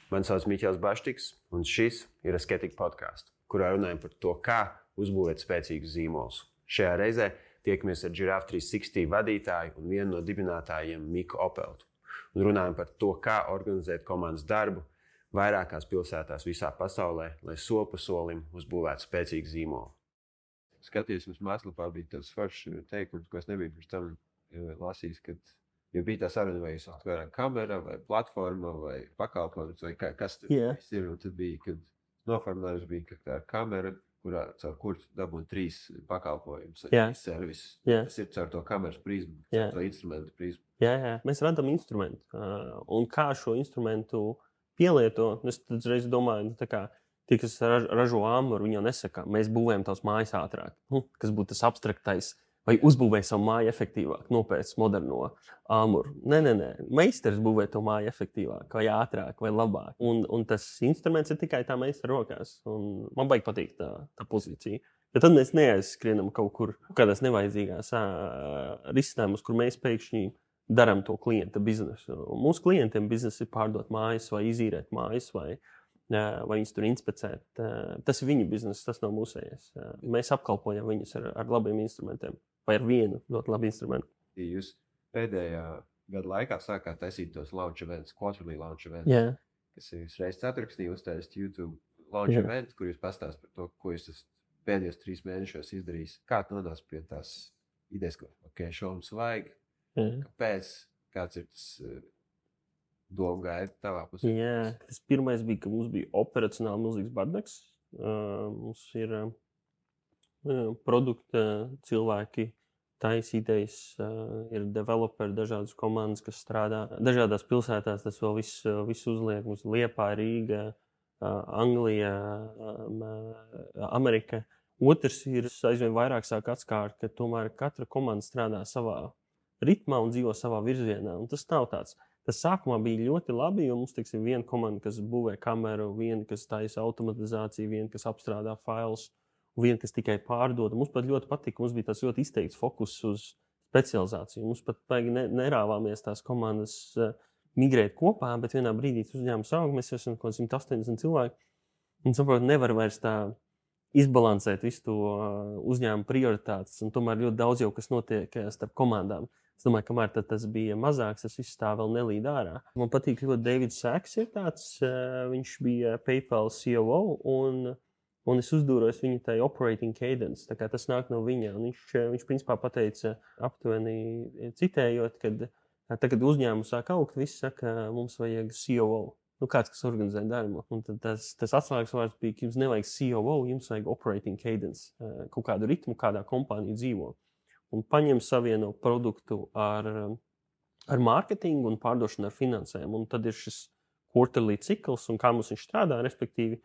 Mani sauc Miķels Baštiks, un šis ir Asketika podcasts, kurā runājam par to, kā uzbūvēt spēcīgus zīmolus. Šajā reizē tiekamies ar Giraffe 360 vadītāju un vienu no dibinātājiem Miku Opeltu. Un runājam par to, kā organizēt komandas darbu vairākās pilsētās visā pasaulē, lai soli pa solim uzbūvētu spēcīgu zīmolu. Skatījos, mums mājaslapā bija tāds foršs teikums, ko es nebiju pirms tam lasījis, kad ja bija tā saruna, vai jūs atvēram kamera, vai platforma, vai pakalpojums, vai kas tur viss ir. Un tad bija, kad noformulējums bija, ka tā ir kamera, caur kuru dabūt 3 pakalpojumus, servisus. Tas ir caur to kameras prizmu, caur to instrumentu prizmu. Jā. Mēs radām instrumentu. Un kā šo instrumentu pielieto, es tad reiz domāju, tie, kas ražo āmuru, viņi jau nesaka, mēs būvējam tavas mājas ātrāk. Kas būtu tas abstraktais, vai uzbūvēja savu māju efektīvāk, nopēc moderno āmuru. Nē. Meistars būvē to māju efektīvāk, vai ātrāk, vai labāk. Un tas instruments ir tikai tā meistara rokās. Un man baigi patīk tā pozīcija. Bet tad mēs neaizskrienam kaut kur kādās nevajadzīgās risinājumus, kur mēs pēkšņi darām to klienta biznesu. Un mūsu klientiem biznesa ir pārdot mājas, vai izīrēt mājas, vai viņus tur inspicēt. Tas ir viņu bizness, tas nav mūsējais. Mēs apkalpojam viņus ar labiem instrumentiem. Vai ar vienu ļoti labu instrumentu. Jūs pēdējā gada laikā sākāt taisīt tos launch events, quarterly launch events, kas ir reizes ceturksnī uztaisīt YouTube launch events, kur jūs pastāst par to, ko jūs pēdējos 3 mēnešos izdarījis. Kā tu nonāc pie tās idejas, ka šo mums vajag, kāpēc, kāds ir tas doma gaida tavā pusē? Tas pirmais bija, ka mums bija operacionāli milzīgs bardaks. Mums ir produkta cilvēki, taisītais, ir developeri, dažādas komandas, kas strādā dažādās pilsētās. Tas vēl viss uzliek. Mums Liepāja, Rīga, Anglija, Amerika. Otrs ir aizvien vairāk sāk atskārt, ka tomēr katra komanda strādā savā ritmā un dzīvo savā virzienā. Un tas nav tāds. Tas sākumā bija ļoti labi, jo mums, teiksim, viena komanda, kas būvē kameru, viena, kas taisa automatizāciju, viena, kas apstrādā failus, viena, kas tikai pārdod. Mums pat ļoti patika, mums bija tas ļoti izteikts fokus uz specializāciju. Mums pat nerāvāmies tās komandas migrēt kopā, bet vienā brīdī uzņēmums aug, mēs esam kaut 180 cilvēki. Un saprot, nevar vairs tā izbalansēt visu to uzņēmumu prioritātes. Un tomēr ļoti daudz jau, kas notiek starp komandām. Es domāju, kamēr tas bija mazāks, tas viss tā vēl nelīd ārā. Man patīk ļoti Davids Sacks ir tāds, viņš bija PayPal COO un es uzdūros viņa tai operating cadence, tā kā tas nāk no viņa. Un viņš principā pateica aptuveni citējot, kad tagad uzņēmums sāk augt, visi saka, mums vajag COO. Kāds, kas organizē darbu. Un tad tas atslēgas vārds bija, ka jums nevajag COO, jums vajag operating cadence, kaut kādu ritmu, kādā kompānija dzīvo. Un paņem savieno produktu ar mārketingu un pārdošanu ar finansēm. Un tad ir šis quarterly cikls, un kā mums viņš strādā, respektīvi,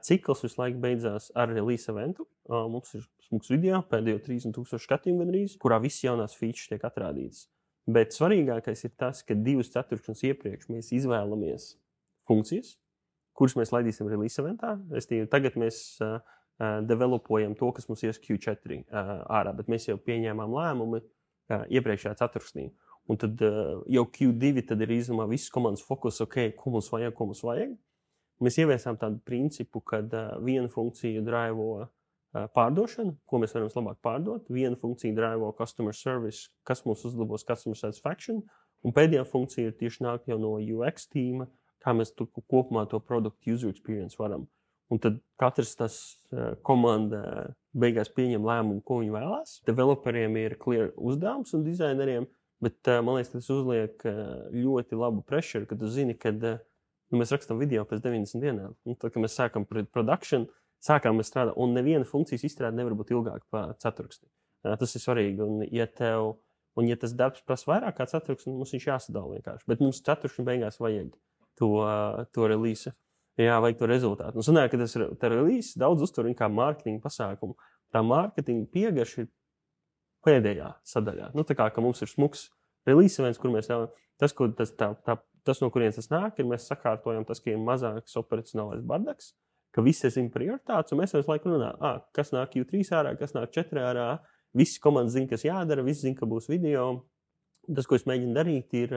cikls visu laiku beidzās ar release eventu. Mums ir smūgs video, pēdējo 30,000 skatījumu gandrīz, kurā viss jaunās features tiek atrādītas. Bet svarīgākais ir tas, ka 2 ceturkšņus iepriekš mēs izvēlamies funkcijas, kuras mēs laidīsim release eventā. Tagad mēs developojam to, kas mums ies Q4 ārā, bet mēs jau pieņēmām lēmumu iepriekšējā ceturksnī. Un tad jau Q2 tad ir izdomā visas komandas fokus, ko mums vajag. Mēs ieviesām tādu principu, ka viena funkcija draivo pārdošanu, ko mēs varam labāk pārdot, viena funkcija draivo customer service, kas mums uzlabos customer satisfaction, un pēdējā funkcija ir tieši nāk jau no UX tīma, kā mēs kopumā to product user experience varam. Un tad katrs tas komanda beigās pieņem lēmumu, ko viņi vēlās. Developeriem ir clear uzdevums un dizaineriem, bet man liekas, ka tas uzliek ļoti labu pressure, ka tu zini, kad mēs rakstam video pēc 90 dienām. Un tad, kad mēs sākam production, sākām mēs strādāt, un neviena funkcijas izstrāde nevar būt ilgāk par ceturksni. Tas ir svarīgi. Un ja tas darbs prasa vairāk kā ceturksni, mums viņš jāsadala vienkārši. Bet mums ceturksni beigās vajag to release. Jā, vajag to rezultātu. Un sanāk, ka tas release daudz uztver kā mārketinga pasākumu. Tā mārketinga piegarša ir pēdējā sadaļā. Tā kā, ka mums ir smuks release events, kur mēs tas, no kurienes tas nāk, ir mēs sakārtojam tas, ka ir mazāks operacionālais bardaks, ka visi zina prioritātes, un mēs visu laiku runājam, kas nāk Q3 ārā, kas nāk 4 ārā. Visi komandas zina, kas jādara, visi zina, ka būs video. Tas, ko es mēģinu darīt, ir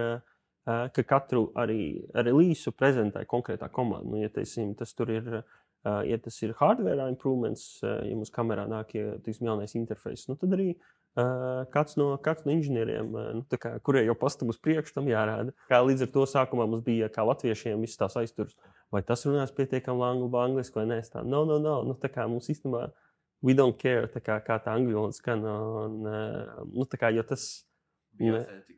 ka katru arī relīsu prezentē konkrētā komanda. Nu, ja teiksim, tas tur ir, ja tas ir hardware improvements, ja mums kamerā nāk jaunais interfejs, nu, tad arī kāds no inženieriem, kurie jau pastam uz priekšu, tam jārāda. Kā līdz ar to sākumā mums bija, kā latviešiem, viss tās aizturs, vai tas runās pietiekami angliski vai nē. No. Nu, tā kā mums īstenībā we don't care, kā tā angļu valoda skan. Jo tas bija authentic.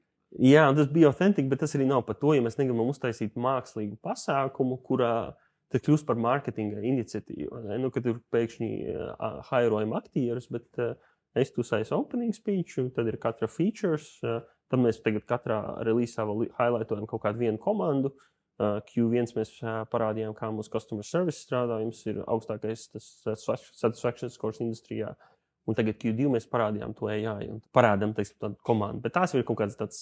Jā, tas bija authentic, bet tas arī nav par to, ja mēs negribam uztaisīt mākslīgu pasākumu, kurā tas kļūst par mārketinga iniciatīvu. Nu, kad tur pēkšņi hairojam aktierus, bet es tu saisu opening speech, tad ir katra features, tad mēs tagad katrā relīzā vēl highlightojam kaut kādu vienu komandu. Q1 mēs parādījām, kā mūsu customer service strādā, jums ir augstākais satisfaction scores industrijā. Un tagad Q2 mēs parādījām to AI un parādām tādu komandu. Bet tās ir kaut kāds tāds,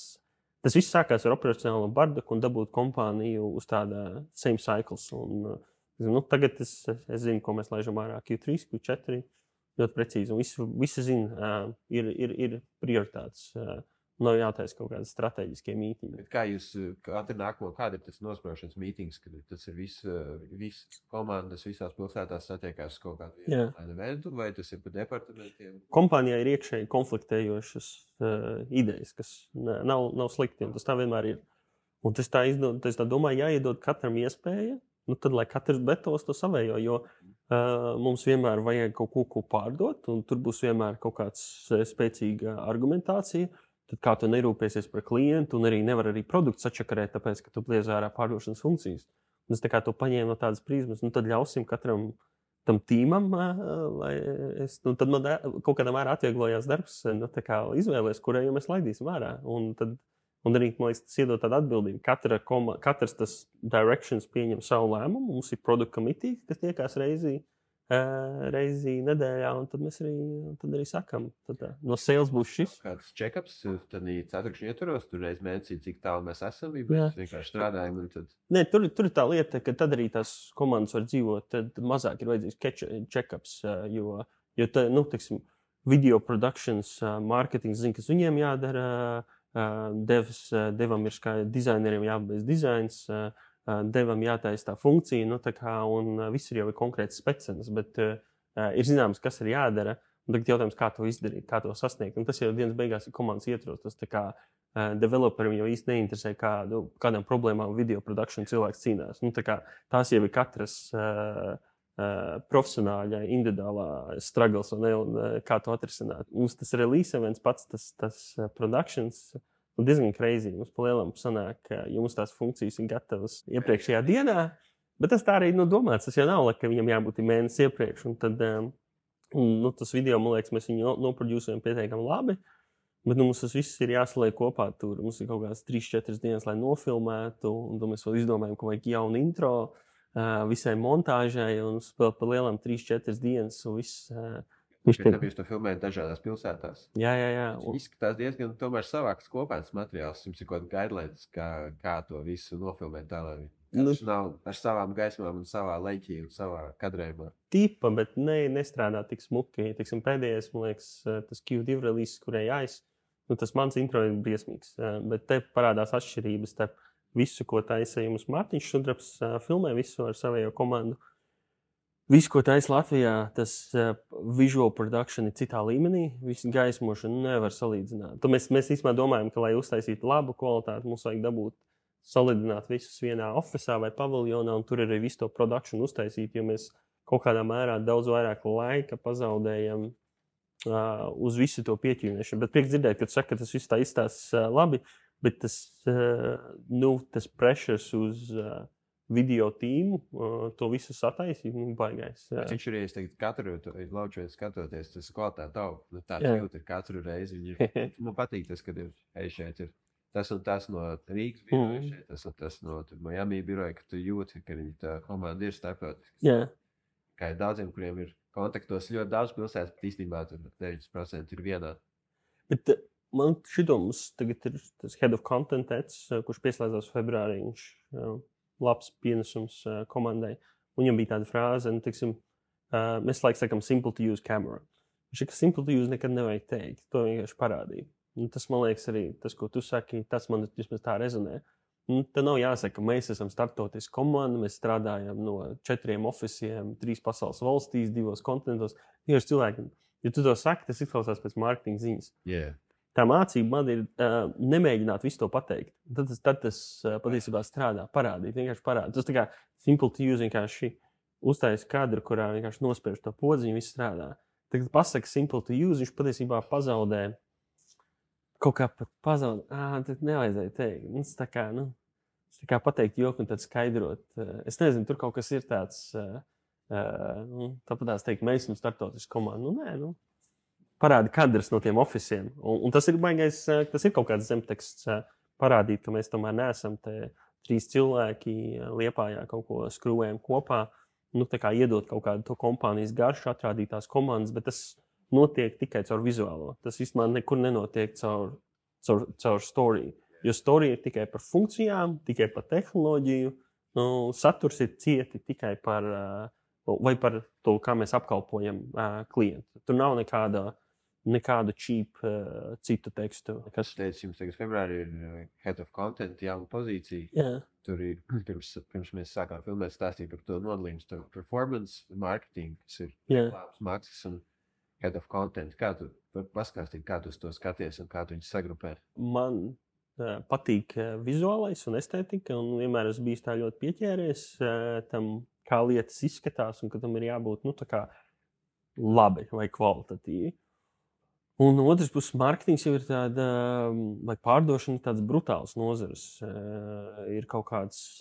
tas viss sākās ar operacionālo bardaku un dabūt kompāniju uz tāda same cycles. Un, tagad es zinu, ko mēs laižam ārā Q3, Q4, ļoti precīzi. Un visi zina, ir prioritātes. Nav jātaisa kaut kādas strateģiskie mītīņi. Kā jūs kāda ir tas nospraušanas mītings, kad tas ir visas komandas, visās pilsētās satiekās kaut kādu eventu, vai tas ir pa departamentiem? Kompānijā ir iekšēji konfliktējošas idejas, kas nav slikti, un tas tā vienmēr ir. Un tas tā domāju, jāiedod katram iespēja, tad lai katrs betos to savējo, jo mums vienmēr vajag kaut ko pārdot, un tur būs vienmēr kaut kāds spēcīga argumentācija. Tad kā tu nerūpēsies par klientu un arī nevar arī produktu sačakarēt, tāpēc, ka tu liec ārā pārdošanas funkcijas. Un es tā kā to paņēmu no tādas prizmas, tad ļausim katram tam tīmam, tad man kaut kādā mērā atvieglojās darbs, tā kā izvēlēs, kurai jau mēs laidīsim ārā. Un arī, man liekas, tas iedod tādu atbildību. Katrs tas directions pieņem savu lēmumu, mums ir product committee, kas tiekās reizi nedēļā, un tad mēs arī sakam, no sales būs šis. Kāds check-ups, tad ceturkšņi ietvaros, tur reiz mēnesī, cik tālu mēs esam, mēs vienkārši strādājam. Nē, tur ir tā lieta, ka tad arī tās komandas var dzīvot, tad mazāk ir vajadzīgs check-ups, jo teiksim, video productions, marketings zina, kas viņiem jādara, devam ir dizaineriem jāpabeidz dizains, devam jātaisa tā funkcija, un viss ir jau konkrēts specenas, bet ir zināms, kas ir jādara, un tagad jautājums, kā to izdarīt, kā to sasniegt. Un tas jau dienas beigās ir komandas ietvaros, tas tā kā developerim jau īsti neinteresē, kādām problēmām video production cilvēks cīnās. Tās jau ir katras profesionāļa, individuālā struggles, un kā to atrisināt. Mums tas release events pats, tas productions, diezgan crazy. Mums palielam sanāk, ka jums tās funkcijas ir gatavas iepriekšējā dienā, bet tas tā arī domāts. Tas jau nav, ka viņam jābūt mēnesi iepriekš. Un tad tas video, man liekas, mēs viņu noproducējam pietiekami labi, bet mums tas viss ir jāsaliek kopā. Tur mums ir kaut kādas 3-4 dienas, lai nofilmētu, un tad mēs vēl izdomājam, ka vajag jaunu intro visai montāžai, un vēl palielam 3-4 dienas, un viss. Jūs to filmējat dažādās pilsētās. Jā. Izskatās diezgan tomēr savāks kopēns materiāls. Jums ir kaut kāda guidelines, kā to visu nofilmēt tā, lai viņš nav ar savām gaismām un savā leņķī un savā kadrējumā. Tipa, bet nestrādā tik smuki. Tiksim, pēdējais, man liekas, tas Q2 release, kurai jāiz, tas mans intro ir briesmīgs. Bet te parādās atšķirības starp visu, ko taisa jums Mārtiņš Sudrabs, filmē visu ar savējo komandu. Visu, ko taisa Latvijā, tas visual production ir citā līmenī. Visu gaismošanu nevar salīdzināt. Tad mēs īstenībā domājam, ka, lai uztaisītu labu kvalitāti, mums vajag dabūt salidināt visus vienā ofisā vai paviljonā, un tur arī visu to produkciju uztaisīt, jo mēs kaut kādā mērā daudz vairāk laika pazaudējam uz visu to pieķīmēšanu. Bet prieks dzirdēt, ka tu saki, ka tas viss tā izstāsta labi, bet tas pressures uz video tīmu, to visu sataisīt, baigais. Viņš ir, ja es teiktu, katru lauču skatoties, tas kvalitāte aug. Tāds jūt ir katru reizi. Man patīk tas, kad šeit ir tas un tas no Rīgas biroja, šeit tas no Miami biroja, ka tu jūti, ka tā komanda ir starptautisks. Kā ir daudziem, kuriem ir kontaktos ļoti daudz pilsētas, bet īstenībā tur 90% ir vienā. Bet man šito mums tagad ir tas head of content, kurš pieslēdzās februārī, viņš labs pienesums komandai. Viņam bija tāda frāze, mēs laikam sakam simple to use camera. Viņš ir, ka simple to use nekad nevajag teikt. To vienkārši parādīja. Tas, man liekas, arī tas, ko tu saki, tas man vismaz tā rezonē. Te nav jāsaka, ka mēs esam starptautiska komanda, mēs strādājam no 4 oficiem, 3 pasaules valstīs, 2 kontinentos. Tieši cilvēkiem, ja tu to saki, tas izklausās pēc mārketinga ziņas. Yeah. Tā mācība man ir nemēģināt visu to pateikt. Tad tas patiesībā strādā, vienkārši parādīt. Tas tā kā simple to use, vienkārši uztaisa kadru, kurā vienkārši nospērš to podziņu, viss strādā. Tagad pasaka simple to use, viņš patiesībā pazaudē. Kaut kā pat pazaudē. Tad nevajadzēja teikt. Tas tā kā pateikt joku un tad skaidrot. Es nezinu, tur kaut kas ir tāds. Tāpat teikt, mēs esam starptautiski komanda. Parādi kadrs no tiem oficiem. Un tas ir baigais, tas ir kaut kāds zemteksts parādīt, ka mēs tomēr neesam te 3 cilvēki Liepājā kaut ko skrūvējam kopā. Tā kā iedot kaut kādu to kompānijas garšu, atrādīt tās komandas, bet tas notiek tikai caur vizuālo. Tas vispār nekur nenotiek caur story. Jo story ir tikai par funkcijām, tikai par tehnoloģiju. Saturs ir cieti tikai par to, kā mēs apkalpojam klientu. Tur nav nekādu cheap citu tekstu. Kas teica, jums tagad februārī ir Head of Content jauna pozīcija. Jā. Tur ir, pirms mēs sākām filmēt, stāstīt par to nodalījumu starp performance marketing, kas ir labs maksas un Head of Content. Kā tu paskāstīt, kā tu to skaties un kā tu viņus sagrupē? Man patīk vizuālais un estētika, un vienmēr esmu bijis tā ļoti pieķēries tam, kā lietas izskatās, un ka tam ir jābūt tā kā labi vai kvalitatīvi. Un otrs puses, mārketings jau ir tāda, vai pārdošana, tāds brutāls nozares. Ir kaut kāds,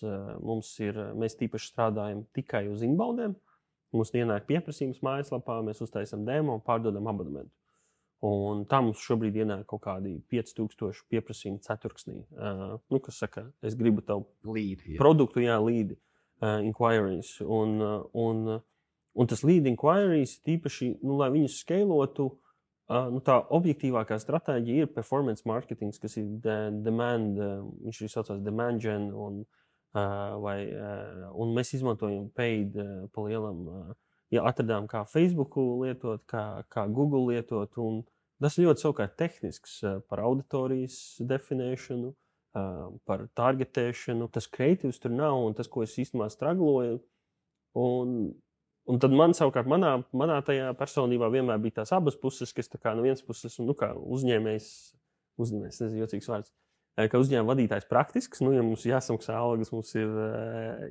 mēs tīpaši strādājam tikai uz inboundiem. Mums ienāk pieprasījums mājaslapā, mēs uztaisam demo un pārdodam abonementu. Un tā mums šobrīd ienāk kaut kādi 5000 pieprasījumi ceturksnī. Kas saka, es gribu tavu produktu, lead inquiries. Un tas lead inquiries tīpaši, lai viņus skalotu, tā objektīvākā stratēģija ir performance marketing, kas ir demand, viņš ir saucās demand gen, un mēs izmantojam paid pa lielam, atradām kā Facebooku lietot, kā Google lietot, un tas ļoti savukārt tehnisks par auditorijas definēšanu, par targetēšanu, tas kreatīvs tur nav, un tas, ko es īstenībā stragloju, un tad man savukārt manā tajā personībā vienmēr bija tās abas puses, kas tā kā no vienas puses, kā uzņēmējs, nezinu, jocīgs vārds, ka uzņēmuma vadītājs praktisks, ja mums jāsamaksā algas, mums ir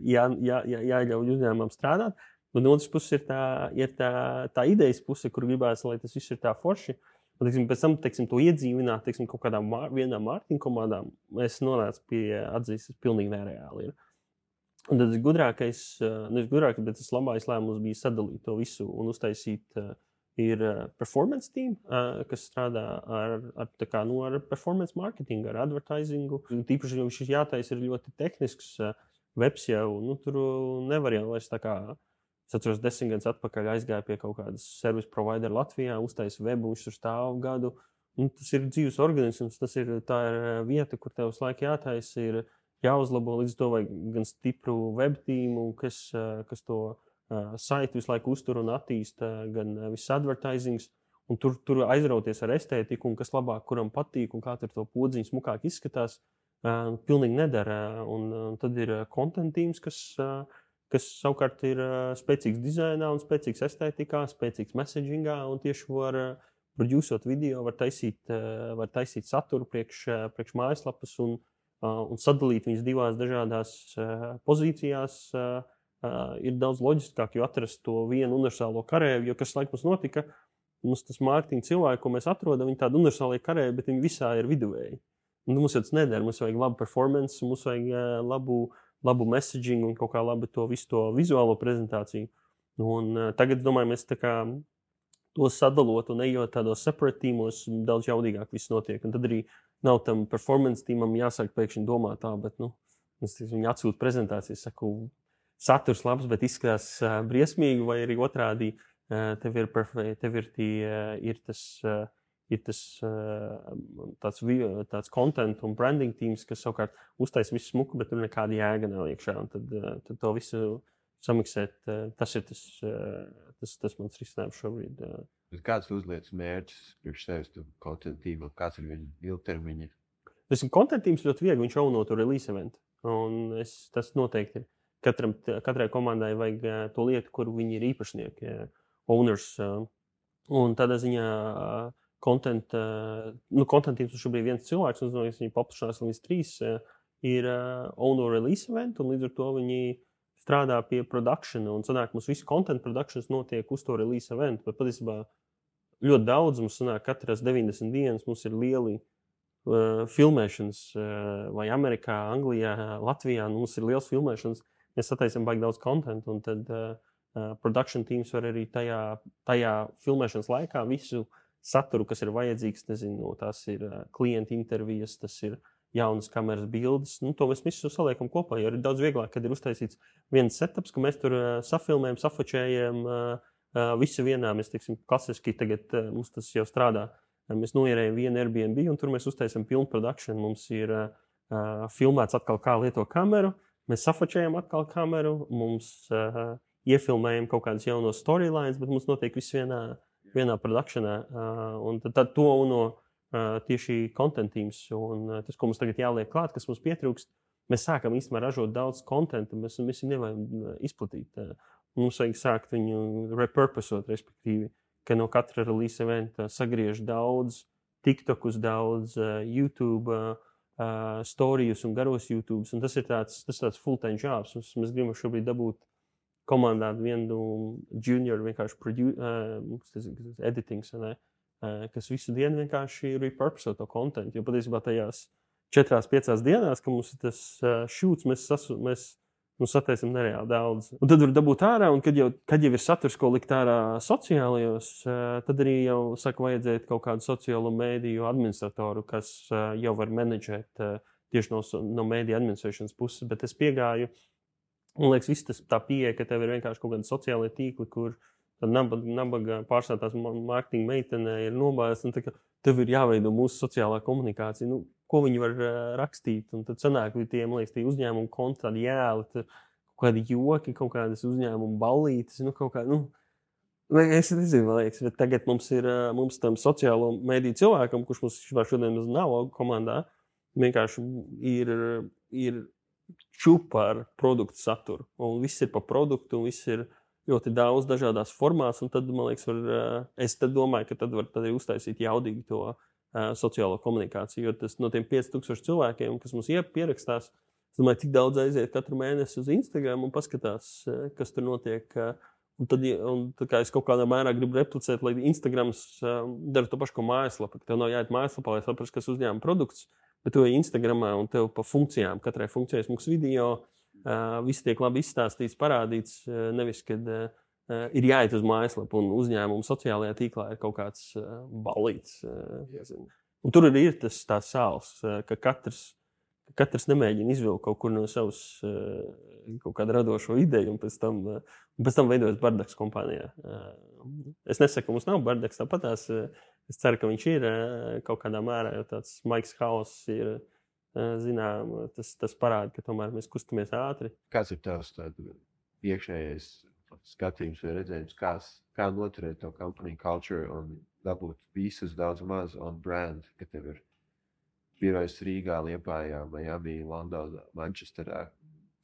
jāļauj uzņēmumam strādāt, un no otras puses ir tā idejas puse, kur gribās, lai tas viss ir tā forši, un pēc tam, to iedzīvināt, kaut kādām vienām mārketinga komandām, es nonācu pie atzīst, tas pilnīgi nereāli ir. Un tad gudrākais, bet tas labākais lēmums bija sadalīt to visu un uztaisīt ir performance team, kas strādā ar performance marketingu, ar advertisingu. Tīpaši, ja viņš jātaisa ir ļoti tehnisks webs jau, tur nevar jau vairs tā kā, es atceros 10 gadus atpakaļ aizgāju pie kaut kādas service provider Latvijā, uztaisa webu, viņš tur stāv gadu. Tas ir dzīves organisms, tā ir vieta, kur tev uz laiku jātaisa ir jāuzlabo, līdz to vajag gan stipru web tīmu, kas to saiti visu laiku uztur un attīsta, gan viss advertisings, un tur aizrauties ar estētiku, un kas labāk, kuram patīk, un kā tur to podziņu smukāk izskatās, pilnīgi nedara. Un tad ir content tīms, kas savukārt ir spēcīgs dizainā un spēcīgs estētikā, spēcīgs messagingā, un tieši var producot video, var taisīt saturu priekš mājaslapas un sadalīt viņas divās dažādās pozīcijās ir daudz loģiskāk, jo atrast to vienu universālo karēju, jo kas laik mums notika, mums tas mārketinga cilvēki, ko mēs atrodam, viņi tādi universālie karēji, bet viņi visā ir viduvēji. Un mums jau tas nedara, mums vajag labu performance, mums vajag labu messaging un kaut kā labi visu to vizuālo prezentāciju. Un tagad, domāju, mēs tā kā to sadalot un ejot tādos separate tīmos, daudz jaudīgāk viss notiek. Un tad arī nav tam performance tīmam jāsāk pēkšņi domāt tā, bet, viņi atsūta prezentācijas, saku, saturs labs, bet izskatās briesmīgi, vai arī otrādi tev ir tāds content un branding teams, kas savukārt uztaisa visu smuku, bet tur nekāda jēga nav iekšā. Un tad to visu samiksēt, tas ir tas mans risinājums šobrīd. Kāds uzliec mērķus priekš sevis content tīmam? Kāds ir viņa ilgtermiņa Content teams ļoti viegli, viņš auno to release eventu. Un tas noteikti ir. Katrai komandai vajag to lietu, kur viņi ir īpašnieki, owners. Un tādā ziņā content teams šobrīd viens cilvēks, un viņi paplašinās līdz 3, ir owner release event, un līdz ar to viņi strādā pie produkšana, un sanāk, mums visu content productions notiek uz to release event, bet patiesībā ļoti daudz mums sanāk, katras 90 dienas mums ir lieli filmēšanas, vai Amerikā, Anglijā, Latvijā, mums ir liels filmēšanas, mēs sataisam baigi daudz content, un tad production teams var arī tajā filmēšanas laikā visu saturu, kas ir vajadzīgs, nezinu, tās ir klienta intervijas, tas ir jaunas kameras bildes, to mēs visu saliekam kopā, jo ir daudz vieglāk, kad ir uztaisīts viens setups, ka mēs tur safilmējam, safočējam, visu vienā, mēs, teiksim, klasiski tagad mums tas jau strādā, mēs noierējam vienu Airbnb, un tur mēs uztaisam pilnu produkšanu, mums ir filmēts atkal, kā lieto kameru, mēs safočējam atkal kameru, mums iefilmējam kaut kādas jaunos storylines, bet mums notiek viss vienā produkšanā, un tad to tieši content teams, un tas, ko mums tagad jāliek klāt, kas mums pietrūkst, mēs sākam īstenībā ražot daudz kontentu, mēs viņu nevajag izplatīt. Mums vajag sākt viņu repurposot, respektīvi, ka no katra release eventa sagriež daudz, TikTokus daudz, YouTube storijus un garos YouTubes, un tas ir tāds full-time jobs. Mēs gribam šobrīd dabūt komandā vienu junior vienkārši editings, ne? Kas visu dienu vienkārši repurposo to kontentu. Jo patiesībā tajās 4-5 dienās, ka mums ir tas šūts, mēs sataisam nereāli daudz. Un tad var dabūt ārā, un kad jau ir saturs, ko likt ārā sociālajos, tad arī jau saka vajadzēt kaut kādu sociālo mēdīju administratoru, kas jau var menedžēt tieši no mēdīju administrēšanas puses. Bet es piegāju, man liekas, viss tas tā pieeja, ka tev ir vienkārši kaut kādi sociālie tīkli, kur tad nabaga pārstāvtās mārketinga meitene ir nobājas, un tev ir jāveido mūsu sociālā komunikācija. Ko viņi var rakstīt, un tad sanāk, tie uzņēmumu konti, tādi jēli, kaut kādi joki, kaut kādas uzņēmumu ballītes, es nezinu, man liekas, bet tagad mums tam sociālo mediju cilvēkam, kurš mums šodien nav komandā, vienkārši ir čupa ar produktu saturu, un viss ir pa produktu, un viss ir ļoti daudz dažādās formās, un tad, man liekas, es domāju, ka tad var arī uztaisīt jaudīgi to sociālo komunikāciju, jo tas no tiem 5000 cilvēkiem, kas mums pierakstās, es domāju, tik daudz aiziet katru mēnesi uz Instagram un paskatās, kas tur notiek. Un tā kā es kaut kādā mērā gribu replicēt, lai Instagrams dara to pašu, ko mājaslapa, ka tev nav jāiet mājaslapā, lai saprastu, kas uzņēma produkts, bet tu ej Instagramā un tev pa funkcijām, katrai funkcijai smūks video, viss tiek labi izstāstīts, parādīts, nevis, kad ir jāiet uz mājaslapu un uzņēmumu sociālajā tīklā ir kaut kāds balīts. Un tur arī ir tā sāls, ka katrs nemēģina izvilkt kaut kur no savas kaut kādu radošo ideju un pēc tam veidojas bardaks kompānijā. Es nesaku, ka mums nav bardaks, tāpatās es ceru, ka viņš ir kaut kādā mērā, jo tāds Maiks Hauss ir zinām, tas parāda, ka tomēr mēs kustamies ātri. Kāds ir tavs iekšējais skatījums vai redzējums, kā noturēt to company culture un dabūt visus daudz maz on brand, ka tev ir birojas Rīgā, Liepājā, Miami, Londonā, Manchesterā,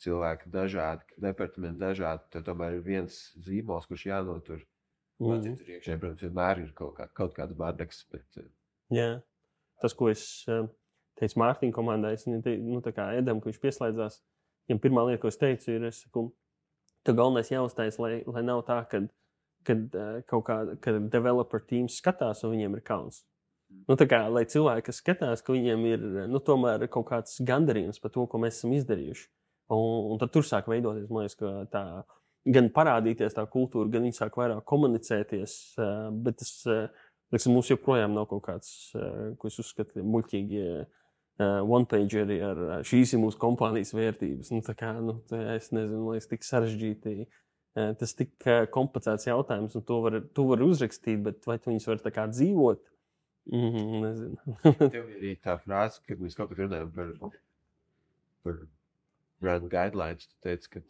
cilvēki dažādi, departamenti dažādi, tad tomēr ir viens zīmols, kurš jānotur. Man tur iekšēji, protams, vienmēr ir kaut kāds bardaks, bet... Jā, tas, ko es teicu Mārtiņa komandai, tā kā Edam, ka viņš pieslēdzās, viņam pirmā lieta, ko es teicu, ir, tev galvenais jāuztais, lai nav tā, kad developer teams skatās un viņiem ir kauns. Tā kā, lai cilvēki, kas skatās, ka viņiem ir, tomēr kaut kāds gandarījums par to, ko mēs esam izdarījuši. Un tad tur sāk veidoties, man liekas, ka tā, gan parādīties tā kultūra, gan viņi sāk vairāk komunicēties, bet tas, mums joprojām nav kaut kāds, ko es uzskatu, muļķīgi one-pageri ar šīs ir mūsu kompānijas vērtības. Es nezinu, man liekas, tik sarežģīti. Tas tik komplicēts jautājums, un to var uzrakstīt, bet vai tu viņus var tā kā dzīvot? Nezinu. Tev ir arī tā frāze, kad mēs kaut kad runājam par brand guidelines, tu teici,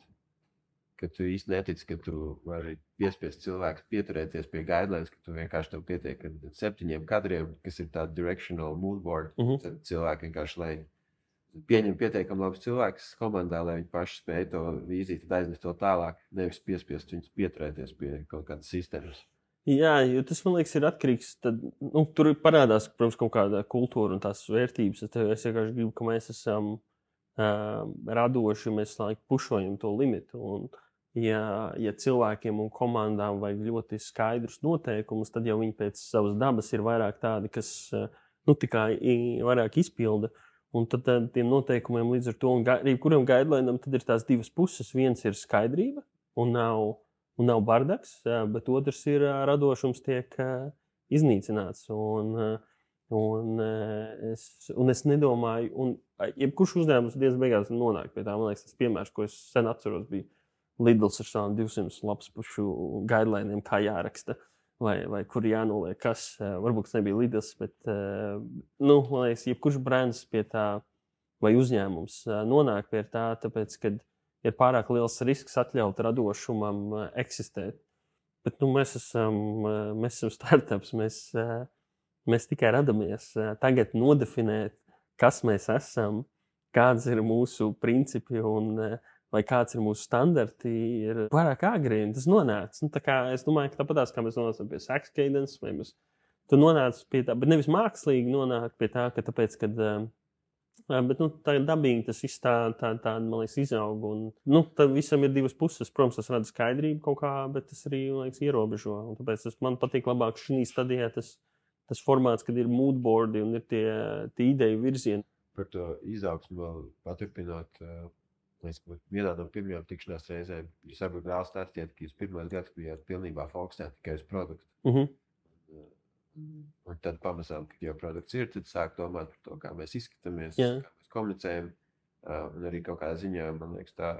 ka tu īsti netici, ka tu vari piespiest cilvēkus pieturēties pie guidelines, ka tu vienkārši tev pietiek ar 7 kadriem, kas ir tāda directional mood board. Tad cilvēki vienkārši, lai pieņem pietiekami labus cilvēkus komandā, lai viņi paši spēj to vīziju, tad aiznest to tālāk, nevis piespiest viņus pieturēties pie kaut kādas sistēmas. Jā, jo tas, man liekas, ir atkarīgs. Tad, tur parādās, protams, kaut kāda kultūra un tās vērtības. Es vienkārši gribu, ka mēs esam radoši, mēs pušojam to limitu. Un, ja cilvēkiem un komandām vajag ļoti skaidrus noteikumus, tad jau viņi pēc savas dabas ir vairāk tādi, kas tikai vairāk izpilda. Un tad tiem noteikumiem līdz ar to, un kuram guidelinam tad ir tās divas puses. Viens ir skaidrība un nav bardaks, bet otrs ir radošums tiek iznīcināts. Un es nedomāju, un jebkurš uzņēmums diezgan beigās nonāk pie tā. Man liekas, tas piemērs, ko es sen atceros, bija Lidls ar savām 200 lapspušu guideliniem, kā jāraksta, vai kur jānoliek kas. Varbūt tas nebija Lidls, bet man liekas, jebkurš brands pie tā, vai uzņēmums nonāk pie tā, tāpēc, kad ir pārāk liels risks atļaut radošumam eksistēt. Bet mēs esam startups, mēs tikai radamies. Tagad nodefinēt, kas mēs esam, kāds ir mūsu principi vai kāds ir mūsu standarti, ir pārāk agri, un tas nonāca. Es domāju, ka tāpatās, kā mēs nonācam pie Sax Cadence, vai tu nonāc pie tā, bet nevis mākslīgi nonāk pie tā, ka tāpēc, kad bet tā dabīgi tas viss tā man liekas, izaug. Un, tad visam ir divas puses. Protams, tas rada skaidrību kaut kā, bet tas arī, man liekas, ierobežo. Un tāpēc man patīk labāk šī stadijā tas formāts, kad ir moodboardi un ir tie ideju virzieni. Par to izaugsmu vēl paturpinot, vienā no pirmajām tikšanās reizēm jūs varbūt vēl stāstījāt, ka jūs pirmais gads bijāt pilnībā fokusēti tikai uz produktu. Un tad pamazām, kad jau produkts ir, tad sāk domāt par to, kā mēs izskatāmies, kā mēs komunicējam. Un arī kaut kādā ziņā, man liekas, tā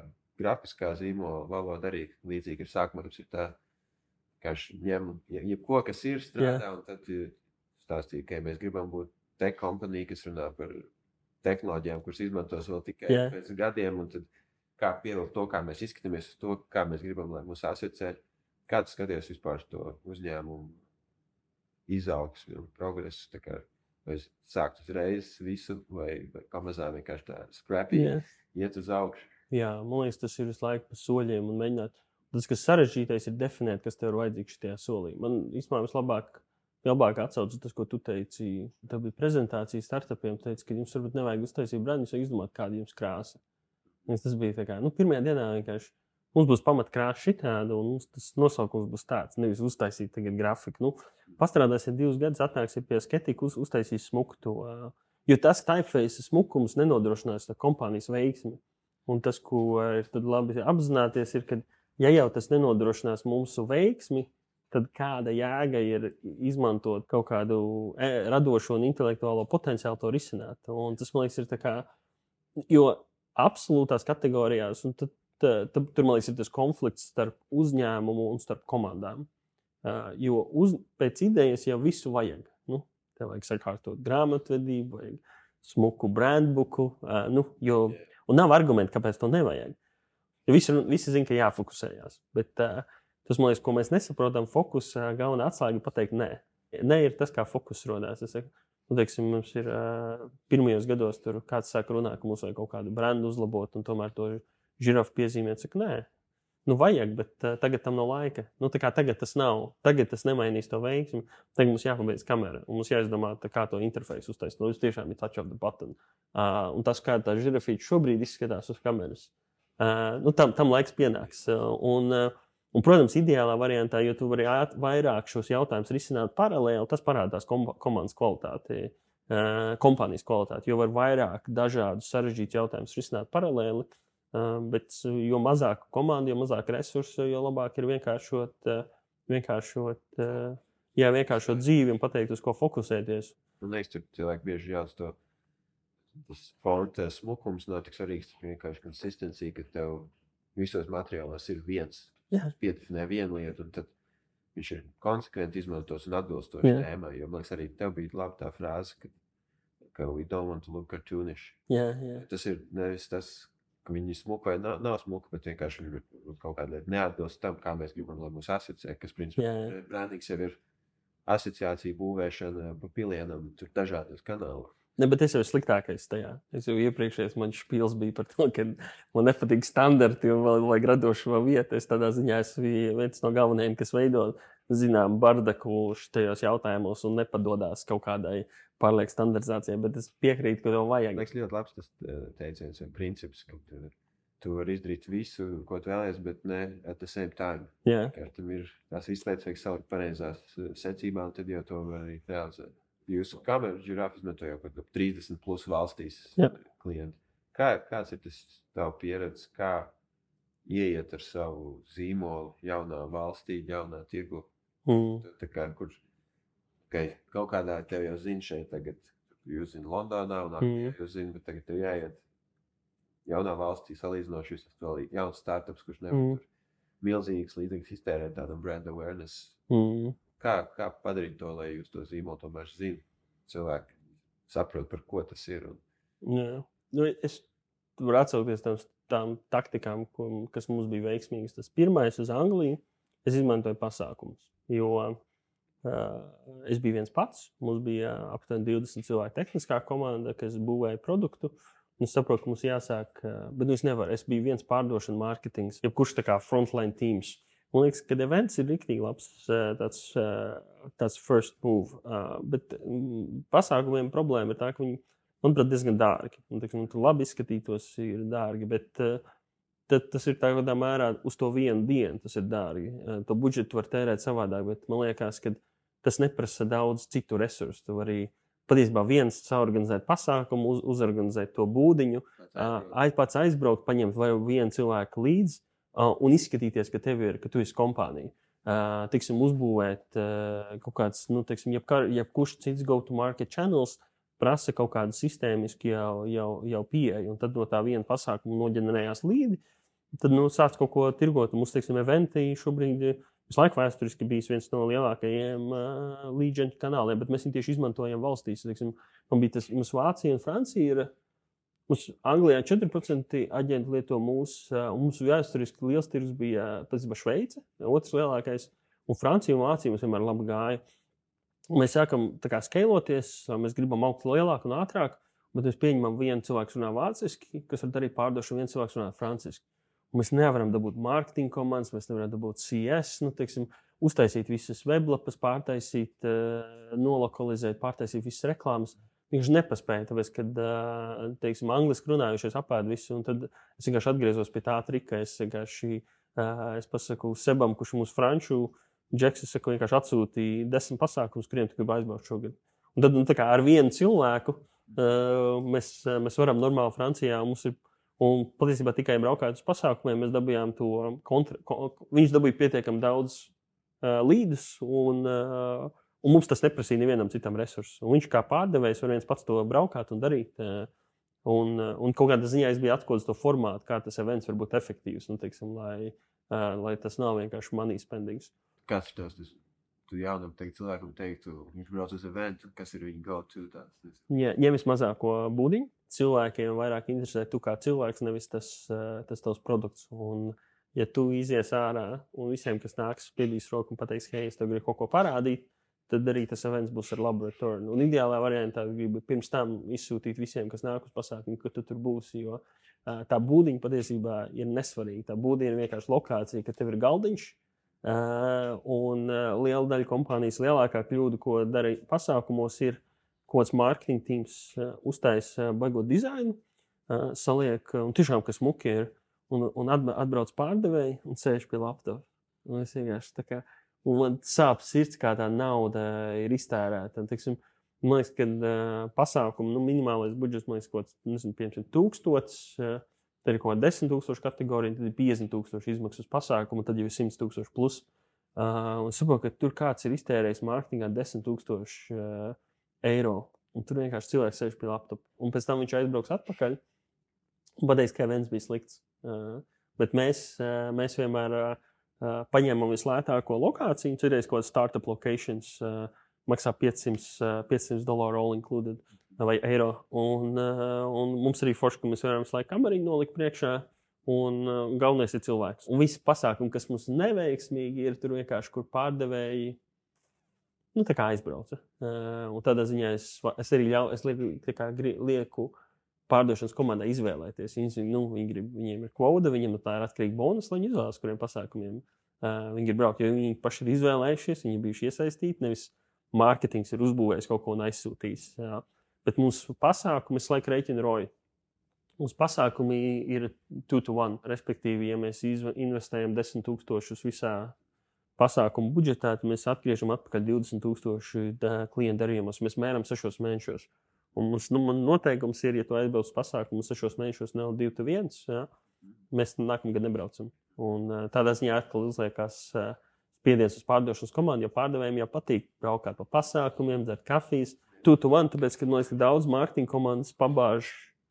grafiskā zīmola valoda arī līdzīgi ir sākumā. Tas ir tā, kā ņem jebko, kas ir strādā, un tad stāstīja, ka mēs gribam būt tech kompanija, kas runā par tehnoloģijām, kuras izmantos vēl tikai pēc gadiem, un tad kā pievilkt to, kā mēs izskatāmies uz to, kā mēs gribam, lai mūs asociē. Kā tu skaties vispār to uzņēmumu izaugsmi un progresu, tā kā vai sākt uzreiz visu, vai pamazām vienkārši tā scrappy iet uz augšu. Jā, man liekas, tas ir visu laiku pa soļiem un mēģināt. Tas, kas sarežģītais, ir definēt, kas tev ir vajadzīgs šajā solī. Man īstenībā vislabāk atsaucas tas, ko tu teici. Tev bija prezentācija startupiem, teici, ka jums varbūt nevajag uztaisīt brandu, jūs vajag izdomāt, kāda jums krāsa. Tas bija tā kā, pirmajā dienā vienkārši mums būs pamatkrāsa šitāda, un tas nosaukums būs tāds, nevis uztaisīt tagad grafiku. Pastrādāsiet 2 gadus, atnāksiet pie Sketiku, uztaisīs smuku to. Jo tas typeface smukums nenodrošinās kompānijas veiksmi. Un tas, ko ir tad labi apzināties, ir, ka ja jau tas nenodrošinās mūsu veiksmi, tad kāda jēga ir izmantot kaut kādu radošo un intelektuālo potenciālu to risināt. Un tas, man liekas, ir tā kā, jo absolūtās kategorijās, un tad tur, man liekas, ir tas konflikts starp uzņēmumu un starp komandām. Jo pēc idejas jau visu vajag. Tev vajag sakārtot grāmatvedību, vajag smuku brandbuku, un nav argumenti, kāpēc to nevajag. Jo visi zina, ka jāfokusējās. Bet tas, man liekas, ko mēs nesaprotam, fokusā galvenā atslēga pateikt nē. Nē ir tas, kā fokus rodās. Es saku, teiksim, mums ir pirmajos gados tur kāds sāk runāt, ka mums vajag kaut kādu brandu uzlabot, un tomēr to žirafu piezīmēt, saka, nē, vajag, bet tagad tam nav laika. Tā kā tagad tas nav, tagad tas nemainīs to veiksmi, tagad mums jāpabeidz kamera, un mums jāizdomā, kā to interfeisu uztaisīt. Jūs tiešām ir touch of the button. Un tas, kā tā žirafīte šobrīd izskatās uz kameras, tam laiks pienāks. Un, protams, ideālā variantā, jo tu vari vairāk šos jautājumus risināt paralēli, tas parādās komandas kvalitāti, kompānijas kvalitāti, jo var vairāk dažādus sarežģītus jautājumus risināt paralēli. Bet jo mazāk komandu, jo mazāk resursu, jo labāk ir vienkāršot dzīvi un pateikt, uz ko fokusēties. Man liekas, tur cilvēki bieži jauc to, tas fonta smukums nav tik svarīgs, vienkārši konsistencija, ka tev visos materiālos ir viens. Piedefinē vienu lietu, un tad viņš ir konsekventi izmantos un atbilstoši tēmai. Jo man liekas, arī tev bija labi tā frāze, ka we don't want to look cartoonish. Tas ir nevis tas, ka viņi smuka vai nav smuka, bet vienkārši viņi kaut kādā lieta neatbilst tam, kā mēs gribam, lai mūs asociē, kas, principā, brandings jau ir asociācija būvēšana pa pilienam, tur dažādos kanālos. Ne, bet es jau sliktākais tajā. Es jau iepriekšējais man špils bija par to, ka man nepatīk standarti un vēl vajag radošo vietu. Es tādā ziņā esmu viens no galvenajiem, kas veido, zinām, bardaku šajos jautājumos un nepadodās kaut kādai pārlieku standartizācijai, bet es piekrītu, ka to vajag. Liekas ļoti labs tas teiciens un princips, ka tu vari izdarīt visu, ko tu vēlies, bet ne at the same time. Jā. Tam ir tās izslēdz vajag salikt pareizās secībā, un tad jau to var arī realizēt. Jūsu kameru žirāfi izmanto jau kaut 30 plus valstīs klienti. Kāds ir tas tavu pieredze, kā ieiet ar savu zīmolu jaunā valstī, jaunā tirgu? Tā kā, kur kaut kādā tev jau zina šeit tagad, jūs zina Londonā un jūs zina, bet tagad tev jāiet jaunā valstī salīdzinoši, jūs esat vēl jauns startups, kurš nevar tur milzīgas līdzīgas iztērēt tādam brand awareness. Kā padarīt to, lai jūs to zīmolu tomēr zina? Cilvēki saprot, par ko tas ir. Jā. Nu, es varu atsaukties tām taktikām, kas mums bija veiksmīgas. Tas pirmais uz Angliju, es izmantoju pasākumus, jo es biju viens pats. Mums bija aptuveni 20 cilvēku tehniskā komanda, kas būvēja produktu. Un es saprotu, ka mums jāsāk, bet es nevaru. Es biju viens pārdošana mārketings, jebkurš tā kā frontline teams. Man liekas, ka events ir riktīgi labs tāds first move. Bet pasākumiem problēma ir tā, ka viņi, manuprāt, diezgan dārgi. Un, teiksim, tur labi izskatītos ir dārgi, bet tas ir tādā mērā uz to vienu dienu tas ir dārgi. To budžetu var tērēt savādāk, bet man liekas, ka tas neprasa daudz citu resursu. Tu vari patiesībā viens saorganizēt pasākumu, uzorganizēt to būdiņu, pats aizbraukt, paņemt vai vienu cilvēku līdzi, un izskatīties, ka tu esi kompānija. Tiksim, uzbūvēt kaut kāds, jebkurš cits go-to-market channels prasa kaut kādu sistēmisku jau pieeju, un tad no tā viena pasākuma noģenerējās līdi, tad sāc kaut ko tirgot. Mums, teiksim, eventi šobrīd visu laiku vēsturiski bijis viens no lielākajiem lead gen kanāliem, bet mēs viņu tieši izmantojam valstīs. Teiksim, mums Vācija un Francija ir. Mums Anglijā 4% aģenti lieto mūsu, un mums vēsturiski liels tirgus bija Šveice, otrs lielākais, un Francija un Vācija mums vienmēr labi gāja. Un mēs sākam tā kā skailoties, mēs gribam augt lielāk un ātrāk, bet mēs pieņemam vienu cilvēku runā vāciski, kas var darīt pārdošanu, viens cilvēks runā franciski. Un mēs nevaram dabūt marketing komandas, mēs nevaram dabūt CS, uztaisīt visas weblapas, pārtaisīt, nolokalizēt, pārtaisīt visas reklāmas. Viņš nepaspēja, tāpēc, kad, teiksim, angliski runājušies apēd visu, un tad es vienkārši atgriezos pie tā trika. Es pasaku Sebam, kurš mūsu franču džeks, es saku, vienkārši atsūtīja 10 pasākumus, kuriem tu gribi aizbraukt šogad. Un tad, tā kā ar vienu cilvēku mēs varam normāli Francijā, un patiesībā tikai braukājot uz pasākumiem, mēs dabījām to viņš dabīja pietiekami daudz līdus, un mums tas neprasīja nevienam citam resursu. Un viņš kā pārdevējs var viens pats to braukāt un darīt. Un kaut kādā ziņā es biju atklājis to formātu, kā tas events var būt efektīvs. Teiksim, lai tas nav vienkārši money spendings. Kāds ir tas? Tu jaunam cilvēkam teiktu, viņš brauc uz eventu, kas ir viņa go-to tāds? Ņem vismazāko būdiņu. Cilvēkiem vairāk interesē tu kā cilvēks, nevis tas tavs produkts. Un, ja tu izies ārā un visiem, kas nāks, spiedīs roku un pateiks, hei, es tev gribu kaut ko parādīt, tad arī tas events būs ar labu return. Un ideālā variantā gribu pirms tam izsūtīt visiem, kas nāk uz pasākumu, ka tu tur būsi, jo tā būdiņa patiesībā ir nesvarīga. Tā būdiņa ir vienkārši lokācija, ka tev ir galdiņš, un liela daļa kompānijas lielākā kļūda, ko dara pasākumos, ir kaut kāds marketing teams uztaisa baigot dizainu, saliek, un tiešām, kas muki ir, un atbrauc pārdevēji un sēž pie laptopa. Un es vienkārši tā kā un man sāp sirds, kā tā nauda ir iztērēta. Teiksim, man liekas, ka pasākumu minimālais budžets, man liekas, kaut kāds 500,000, tad ir kaut kāda 10,000 kategorija, tad ir 50,000 izmaksas pasākumu, tad jau ir 100,000 plus. Un saprotu, ka tur kāds ir iztērējis mārketingā 10,000 eiro. Un tur vienkārši cilvēks sēž pie laptopa. Un pēc tam viņš aizbrauks atpakaļ un pateiks, ka events bija slikts. Bet mēs vienmēr paņēmām vislētāko lokāciju, cerēs kaut kāds startup locations, maksā $500 all included. vai eiro. Un mums arī forši, ka mēs varam slēgt kameriņu nolikt priekšā. Un galvenais ir cilvēks. Un visi pasākumi, kas mums neveiksmīgi ir, tur vienkārši, kur pārdevēji tā kā aizbrauca. Un tādā ziņā es arī lieku pārdošanas komandai izvēlēties. Viņiem ir kvota, viņiem tā ir atkarīga bonus, lai viņi izvēlas, kuriem pasākumiem viņi ir braukt. Jo viņi paši ir izvēlējušies, viņi ir bijuši iesaistīti, nevis mārketings ir uzbūvējis kaut ko un aizsūtījis. Jā. Bet mūsu pasākumi laika rēķina roju. Mūsu pasākumi ir 2-to-1, respektīvi, ja mēs investējam 10,000 visā pasākumu budžetā, tad mēs atgriežam atpakaļ 20,000 klientu darījumos. Mēs mēram 6 mēnešos. Un man noteikums ir, ja tu aizbrauc uz pasākumu 6 mēnešos, nav 2-1, ja, mēs nākamgad nebraucam. Un tādā ziņā atkal uzliekās spiediens uz pārdošanas komandu, jo pārdevējiem jau patīk braukāt pa pasākumiem, dzert kafijas. 2-to-1, tāpēc, ka man liekas, ka daudz mārketinga komandas pabāž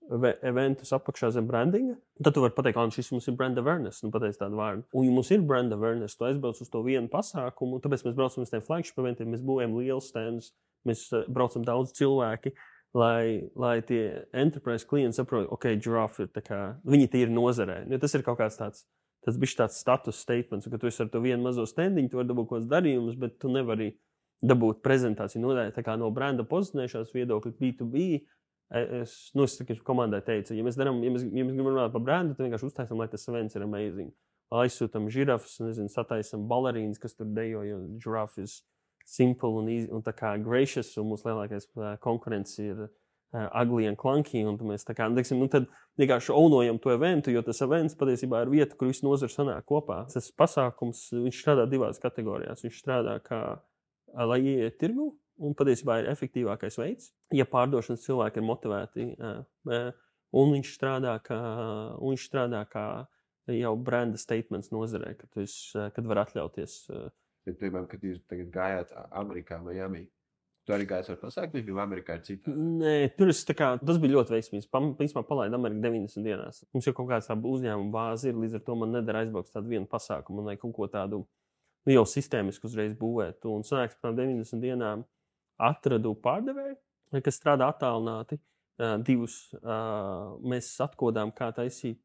eventus apakšā zem brandinga. Tad tu vari pateikt, ka šis mums ir brand awareness, pateic tādu vārdu. Un ja mums ir brand awareness, tu aizbrauc uz to vienu pasākumu, tāpēc mēs braucam uz tiem flagship eventiem, mēs būvējam liels standus, mēs braucam daudz cilvēki, lai tie enterprise klienti saprot, ok, Giraffe ir tā kā, viņi tie ir nozarē. Jo tas ir kaut kāds tāds bišķi tāds status statements, ka tu esi ar to vienu mazo standiņu, tu vari dabūt kaut kāds darījumus, bet tu nevari dabūt prezentāciju nodaļu, tā kā no branda pozicionēšanās viedokļa B2B. Es komandai teicu, ja mēs gribam runāt par brandu, tad vienkārši uztaisam, lai tas events ir amazing. Aizsūtam žirafas, sataisam balerīnas, kas tur dejo, jo Giraffe ir simple un easy, un tā kā gracious, un mūsu lielākais konkurence ir ugly and clunky, un mēs tā kā, tad vienkārši ownojam to eventu, jo tas events patiesībā ir vieta, kur visi nozari sanāk kopā. Tas pasākums, viņš strādā 2 kategorijās. Viņš strādā kā, lai ieiet tirgu, un patiesībā ir efektīvākais veids, ja pārdošanas cilvēki ir motivēti. Un viņš strādā kā jau branda statements nozarē, kad var atļauties. Bet, piemēram, kad jūs tagad gājāt Amerikā, Miami, tu arī gājāt ar pasākumiem, jo Amerikā ir citā? Nē, tas bija ļoti veiksmīgs. Principā palaida Ameriku 90 dienās. Mums jau kaut kāds tāda uzņēmuma bāze ir, līdz ar to man nedara aizbraukt tādu vienu pasākumu, un lai kaut ko tādu jau sistēmisku uzreiz būvēt. Un sanāks par 90 dienām atradu pārdevēju, kas strādā attālināti. 2 mēs atkodām, kā taisīt,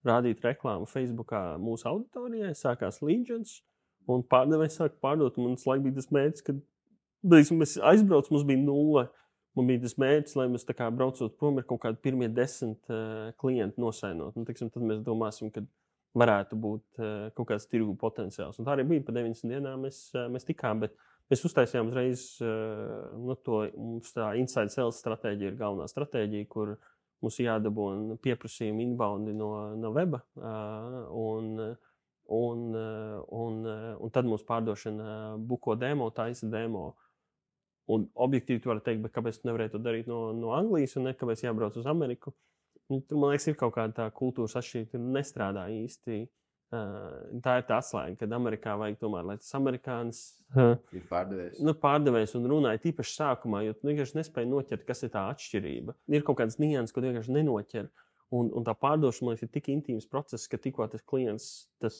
rādīt reklāmu Facebookā mūsu auditorijai. Sākās Legions, un pārdevējs sāka pārdot. Un tas laik bija tas mērķis, kad mēs aizbraucam, mums bija 0. Man bija tas mērķis, lai mēs tā kā braucot prom ir kaut kādi pirmie 10 klienti nosainot. Tad mēs domāsim, ka varētu būt kaut kāds tirgu potenciāls. Un tā arī bija pa 90 dienām mēs tikām, bet mēs uztaisījām uzreiz mums tā inside sales stratēģija ir galvenā stratēģija, kur mums jādabūna pieprasījumi inboundi no weba, un tad mums pārdošana buko demo, taisa demo. Un objektīvi tu vari teikt, bet kāpēc tu nevarēji to darīt no Anglijas un kāpēc jābrauc uz Ameriku? Tur, man liekas, ir kaut kāda tā kultūras atšķirība, tur nestrādā īsti. Tā ir tā atslēga, kad Amerikā vajag tomēr, lai tas amerikānis ir pārdevējs. Pārdevējs un runāja tīpaši sākumā, jo tu vienkārši nespēji noķert, kas ir tā atšķirība. Ir kaut kāds nianses, ko tu vienkārši nenoķer. Un tā pārdošana, man liekas, ir tik intīms process, ka tikko tas klients, tas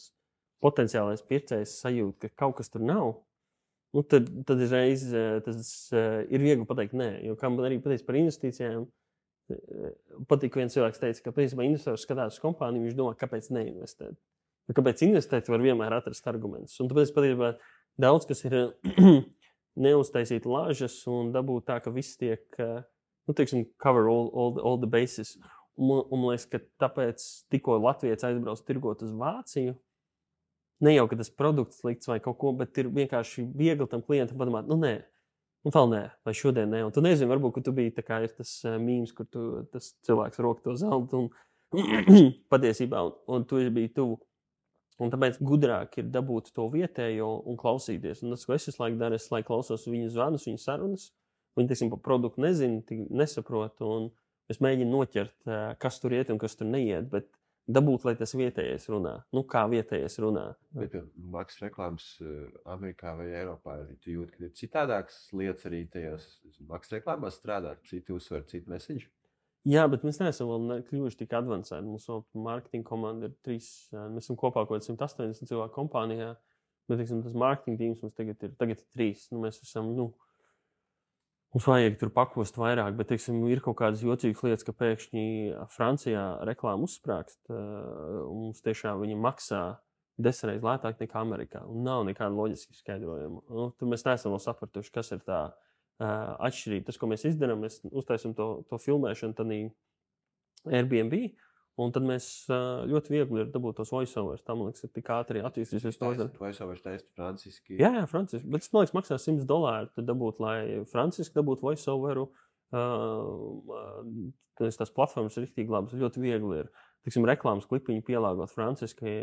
potenciālais pircējs sajūt, ka kaut kas tur nav, tad uzreiz tas ir viegli pateikt nē. Jo kā man arī pateica par investīcijām, patīk viens cilvēks teica, ka principā investors skatās uz kompāniju, viņš domā, kāpēc neinvestēt. Kāpēc investēt, var vienmēr atrast argumentus. Un tāpēc patiesībā daudz, kas ir neuztaisīt lāžas un dabūt tā, ka viss tiek, cover all the bases. Un man liekas, ka tāpēc tikko Latvijas aizbrauc tirgot uz Vāciju, ne jau, ka tas produkts slikts vai kaut ko, bet ir vienkārši viegli tam klientam padomāt, nē, un vēl nē, vai šodien nē. Un tu nezini, varbūt, ka tu biji tā kā ir tas mīms, kur tas cilvēks roka to zeltu un patiesībā, un tu biji tuvu. Un tāpēc gudrāk ir dabūt to vietējo un klausīties. Un tas, ko es visu laiku daru, es klausos viņu zvanus, viņu sarunas. Viņi, par produktu nezinu, nesaprotu. Un es mēģinu noķert, kas tur iet un kas tur neiet. Bet dabūt, lai tas vietējais runā. Kā vietējais runā. Bet maksas reklāmas Amerikā vai Eiropā, tu jūti, ka ir citādākas lietas arī tajās maksas reklāmās strādāt, citi uzsver, citu message? Jā, bet mēs neesam vēl kļuvuši tik advancēti. Mums marketinga komanda ir 3, mēs esam kopā kaut 180 cilvēku kompānijā, bet, tas marketinga tīms mums tagad ir 3. Mēs esam, mums vajag tur pakost vairāk, bet, teiksim, ir kaut kādas jocīgas lietas, ka pēkšņi Francijā reklāma uzsprāgst, un mums tiešām viņi maksā 10 reizes lētāk nekā Amerikā, un nav nekāda loģiska skaidrojuma. Tur mēs neesam vēl sapratuši, kas ir tā atšķirība. Tas, ko mēs izdarām, mēs uztaisam to filmēšanu tādā Airbnb, un tad mēs ļoti viegli ir dabūt tos voiceovers. Tā, man liekas, ir tik ātri attīstīsies. Voiceovers taisīt franciski. Jā, franciski. Bet es, man liekas, maksā $100, tad dabūt, lai franciski dabūtu voiceoveru. Tās platformas ir riktīgi labas, ļoti viegli ir. Tiksim, reklāmas klipiņu pielāgot franciski.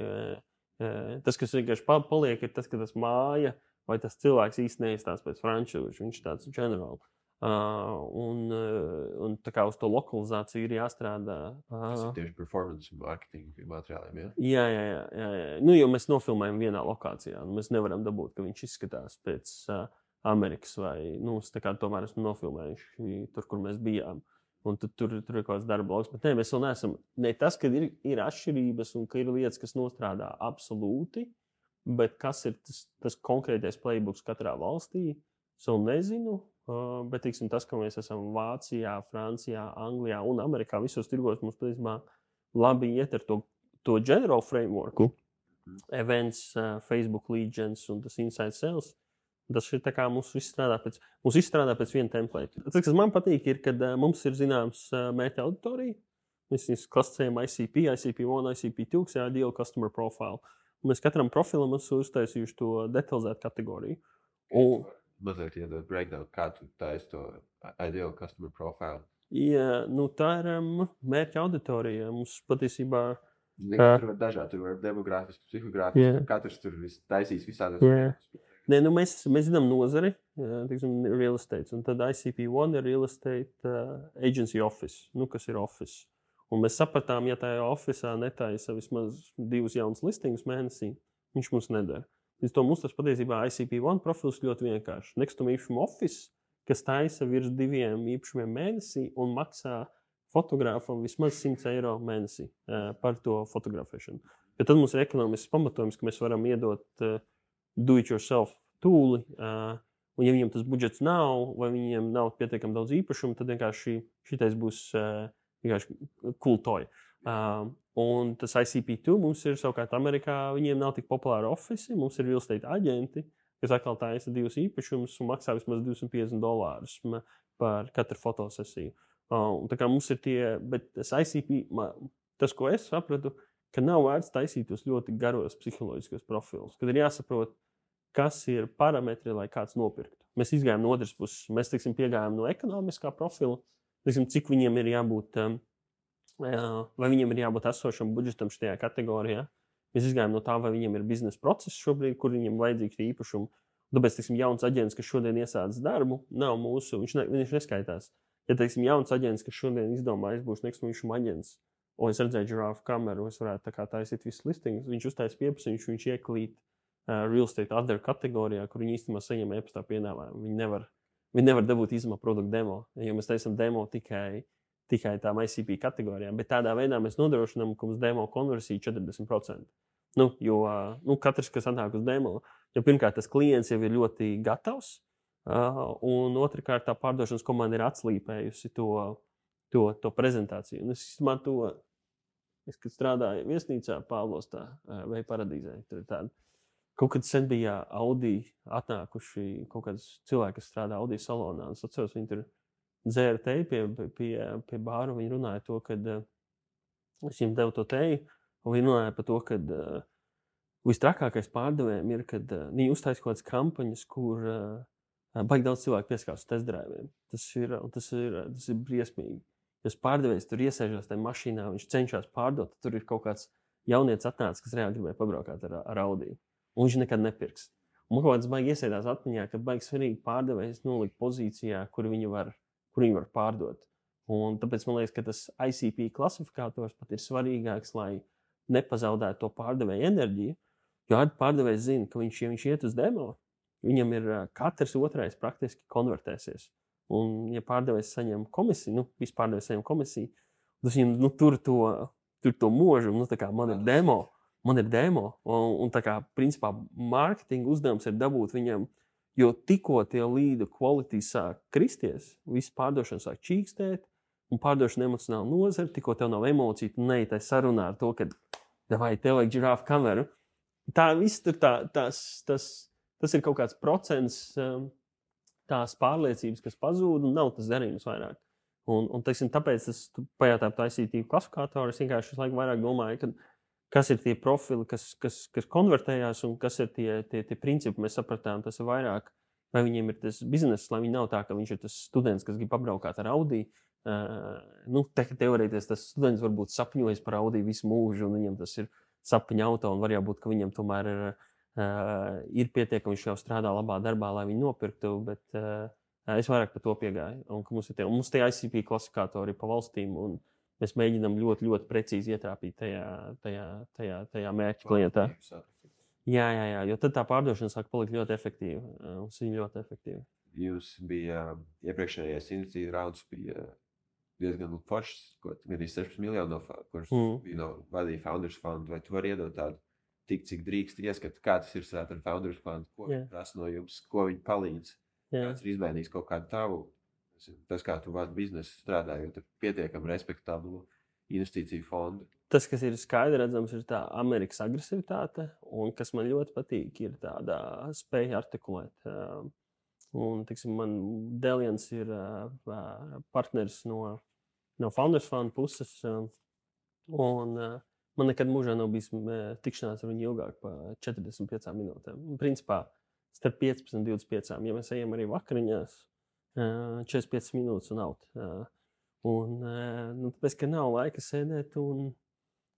Tas, kas vienkārši paliek, ir tas, ka tas māja vai tas cilvēks īsti neizstāsta pēc frančūžu. Viņš ir tāds generāli. Un tā kā uz to lokalizāciju ir jāstrādā. Tas ir tieši performance marketing materiāliem, jā? Jā. Nu, jo mēs nofilmējam vienā lokācijā. Mēs nevaram dabūt, ka viņš izskatās pēc Amerikas vai, nu, tā kā tomēr esmu nofilmējuši tur, kur mēs bijām. Un tur ir kaut kāds darba lauks. Bet ne, mēs vēl neesam, ne tas, ka ir atšķirības un ka ir lietas, kas nostrādā absolūti, bet kas ir tas konkrētais playbooks katrā valstī, es vēl nezinu. Bet, teiksim, tas, ka mēs esam Vācijā, Francijā, Anglijā un Amerikā, visos tirgos mums patiesībā labi iet ar to general frameworku, events, Facebook lead gens un tas inside sales. Tas ir tā kā mums viss strādā pēc viena template. Tas, kas man patīk, ir, kad mums ir zināms mērķa auditorija. Mēs viņus klasicējam ICP, ICP1, ICP2, kas ir Ideal Customer Profile. Un mēs katram profilam esam uztaisījuši to detalizētu kategoriju. Mazliet iedod breakdown, kā tu taisi to Ideal Customer Profile. Jā, nu tā ir mērķa auditorija. Mums patiesībā... Tur var dažādi, tur var demogrāfiski, psihogrāfiski, katrs tur taisīs visādos. Nē, nu mēs zinām nozari, teiksim, real estate, un tad ICP1 ir real estate agency office, nu, kas ir office. Un mēs sapratām, ja tajā officā netaisa vismaz 2 jaunas listingus mēnesī, viņš mums nedara. Līdz to mums tas patiesībā ICP1 profils ļoti vienkārši. Nekustamā īpašuma office, kas taisa virs 2 īpašumiem mēnesī un maksā fotogrāfam vismaz €100 mēnesī par to fotografēšanu. Bet tad mums ir ekonomisks pamatojums, ka mēs varam iedot do-it-yourself tūli, un ja viņam tas budžets nav, vai viņiem nav pietiekami daudz īpašumu, tad vienkārši šitais būs vienkārši cool toy. Un tas ICP2 mums ir savukārt Amerikā, viņiem nav tik populāri ofici, mums ir real estate aģenti, kas atkal taisa 2 īpašumus un maksā vismaz $250 par katru fotosesiju. Un tā kā mums ir tie, bet tas ICP, tas, ko es sapratu, ka nav vērts taisīt tos ļoti garos psiholoģiskos profilus, kad ir jāsaprot, kas ir parametri, lai kāds nopirktu. Mēs izgājām no otras puses, mēs, teiksim, piegājām no ekonomiskā profila, teiksim, cik viņiem ir jābūt, vai viņiem ir jābūt esošam budžetam šajā kategorijā. Mēs izgājām no tā, vai viņiem ir biznesa process šobrīd, kur viņiem vajadzīgs īpašumu. Tāpēc, teiksim, jauns aģents, kas šodien iesācis darbu, nav mūsu, viņš neskaitās. Ja, teiksim, jauns aģents, kas šodien izdomā, es būšu nekustamā īpašuma aģents, un es redzēju girāfu kameru, es varētu tā kā taisīt visus listingus, viņš uztais pieprasījums, viņš ieklīt real estate other kategorijā, kur viņi īstenībā saņem e-pastā piedāvājumu. Viņi nevar dabūt izmā produktu demo, jo mēs taisam demo tikai tām ICP kategorijām, bet tādā veidā mēs nodrošinām, ka mums demo konversija 40%. Jo katrs, kas atnāk uz demo, jo pirmkārt tas klients jau ir ļoti gatavs, un otrkārt tā pārdošanas komanda ir atslīpējusi to prezentāciju. Un es īstenībā kad strādāju viesnīcā Pāvlostā vai Paradīzē, tur ir tāda. Kaut kad sen bija Audi atnākuši kaut kāds cilvēki, kas strādā Audi salonā. Es atceros, viņi tur dzēra teju pie bāra, viņi runāja to, kad es viņiem devu to teju, un viņi runāja par to, kad vistrakākais pārdevējiem ir, kad viņi uztaisa kaut kādas kampaņas, kur baigi daudz cilvēku pieskārs testdriviem. Tas ir briesmīgi. Ja pārdevējs tur iesēžās tajā mašīnā, viņš cenšas pārdot, tur ir kaut kāds jaunietis atnācis, kas reāli gribēja pabraukāt ar Audi. Un viņš nekad nepirks. Un man kaut kāds baigi iesēdās atmiņā, ka baigi svarīgi pārdevējs nolikt pozīcijā, kur viņi var pārdot. Un tāpēc man liekas, ka tas ICP klasifikators pat ir svarīgāks, lai nepazaudētu to pārdevēju enerģiju. Jo pārdevējs zina, ka ja viņš iet uz demo, viņam ir katrs otrais praktiski konvertēsies. Un, ja pārdevējs saņem komisiju, visi pārdevējs saņem komisiju, tas viņam tur to mūžu, tā kā man ir demo, un tā kā, principā, mārketinga uzdevums ir dabūt viņam Jo tikko tie līdu quality sāk kristies, viss pārdošana sāk čīkstēt, un pārdošana emocionāli nozara, tikko tev nav emociju, tu neej tai sarunā ar to, ka vai tev vajag žirāfu kameru. Tā viss tur tas ir kaut kāds procents tās pārliecības, kas pazūd, un nav tas darījums vairāk. Un teiksim, tāpēc tu pajautā par ICT klasifikātoru, es vienkārši visu laiku vairāk domāju, kas ir tie profili, kas konvertējās, un kas ir tie principi, mēs sapratām, tas ir vairāk, vai viņiem ir tas bizness, lai viņi nav tā, ka viņš ir tas students, kas grib apbraukāt ar Audi. Teorētiski tas students varbūt sapņojas par Audi visu mūžu, un viņam tas ir sapņu auto, un var jābūt, ka viņam tomēr ir pietiekami, viņš jau strādā labā darbā, lai viņu nopirktu, bet es vairāk par to piegāju. Un mums tie ICP klasifikātori ir pa valstīm, un mēs mēģinām ļoti, ļoti precīzi ietrāpīt tajā mērķa klientā. Jā, jo tad tā pārdošana sāk palikt ļoti efektīva. Mums ir ļoti efektīva. Jūs bija iepriekšējais investīcija rauds bija diezgan foršs, gan arī 16 miljonu, kurš vadīja Founders Fund, vai tu vari iedot tādu tik, cik drīkst ieskatu, kā tas ir ar Founders Fund, ko prasa no jums, ko viņi palīdz, kāds ir izmainījis kaut kādu tavu, tas, kā tu vadi biznesu strādājot ar pietiekam respektablu investīciju fondu. Tas, kas ir skaidri redzams, ir tā Amerikas agresivitāte, un kas man ļoti patīk, ir tāda spēja artikulēt. Un, tiksim, man Delians ir partneris no Founders Fund puses, un man nekad mūžā nav bijis tikšanās ar viņu ilgāk par 45 minūtēm. Principā, starp 15 un 25. Ja mēs ejam arī vakariņās, 45 minūtes un out. Tāpēc, ka nav laika sēdēt, un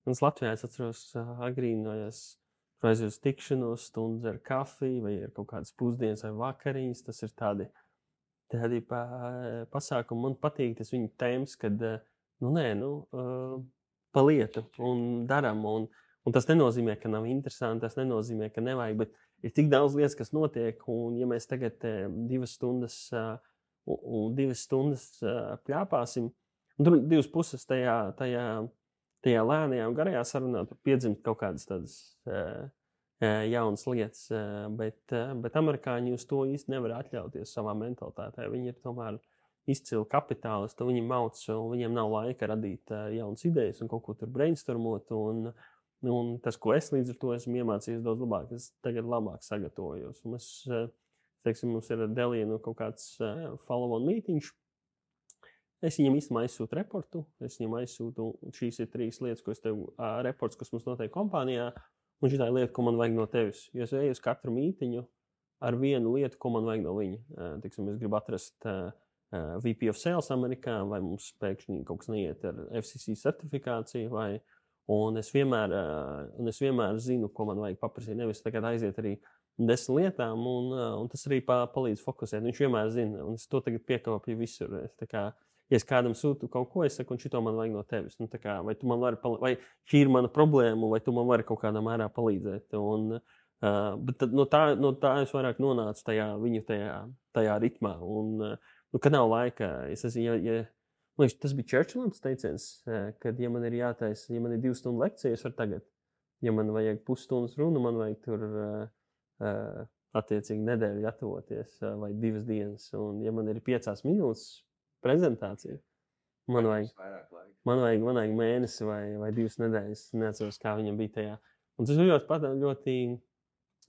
es Latvijā atceros agrīnojos aizies tikšanos, stundas ar kafiju, vai ir kaut kādas pusdienas vai vakariņas. Tas ir tādi pasākumi. Man patīk tas viņa tēmas, kad pa lietu un daram. Un tas nenozīmē, ka nav interesanti, tas nenozīmē, ka nevajag, bet ir tik daudz lietas, kas notiek, un ja mēs tagad 2 stundas pļāpāsim, un tur 2 puses tajā lēnajā un garajā sarunā tur piedzimt kaut kādas tādas jaunas lietas, bet amerikāņi uz to īsti nevar atļauties savā mentalitātē. Viņi ir tomēr izcili kapitālisti, viņi mauc, un viņiem nav laika radīt jaunas idejas un kaut ko tur brainstormot, un tas, ko es līdz ar to esmu iemācījies daudz labāk, es tagad labāk sagatavojos. Un mums ir Delianu kaut kāds follow-on mītiņš. Es viņam īstenībā aizsūtu reportu, šīs ir 3 lietas, ko es tev, reports, kas mums notiek kompānijā, un šī tā lieta, ko man vajag no tevis. Jo es eju uz katru mītiņu ar vienu lietu, ko man vajag no viņa. Es gribu atrast VP of Sales Amerikā, vai mums pēkšņi kaut kas neiet ar FCC certifikāciju, un es vienmēr zinu, ko man vajag paprasīt. Nevis tagad aiziet arī 10 lietām, un tas arī palīdz fokusēt. Viņš vienmēr zina, un es to tagad piekopju visur. Ja es kādam sūtu kaut ko, es saku, un šito man vajag no tevis. Vai tu man vari vai šī ir mana problēma, vai tu man vari kaut kādā mērā palīdzēt. Bet no tā es vairāk nonācu tajā ritmā. Kad nav laika, tas bija Churchillam teiciens, kad, ja man ir jātaisa, ja man ir 2 stundu lekcija, es varu tagad. Ja man vajag pusstundas runu, man vajag tur attiecīgi nedēļu gatavoties, vai 2 dienas. Un ja man ir 5 minūtes prezentācija, man vajag mēnesi vai 2 nedēļas. Neatceros, kā viņam bija tajā. Un tas ļoti,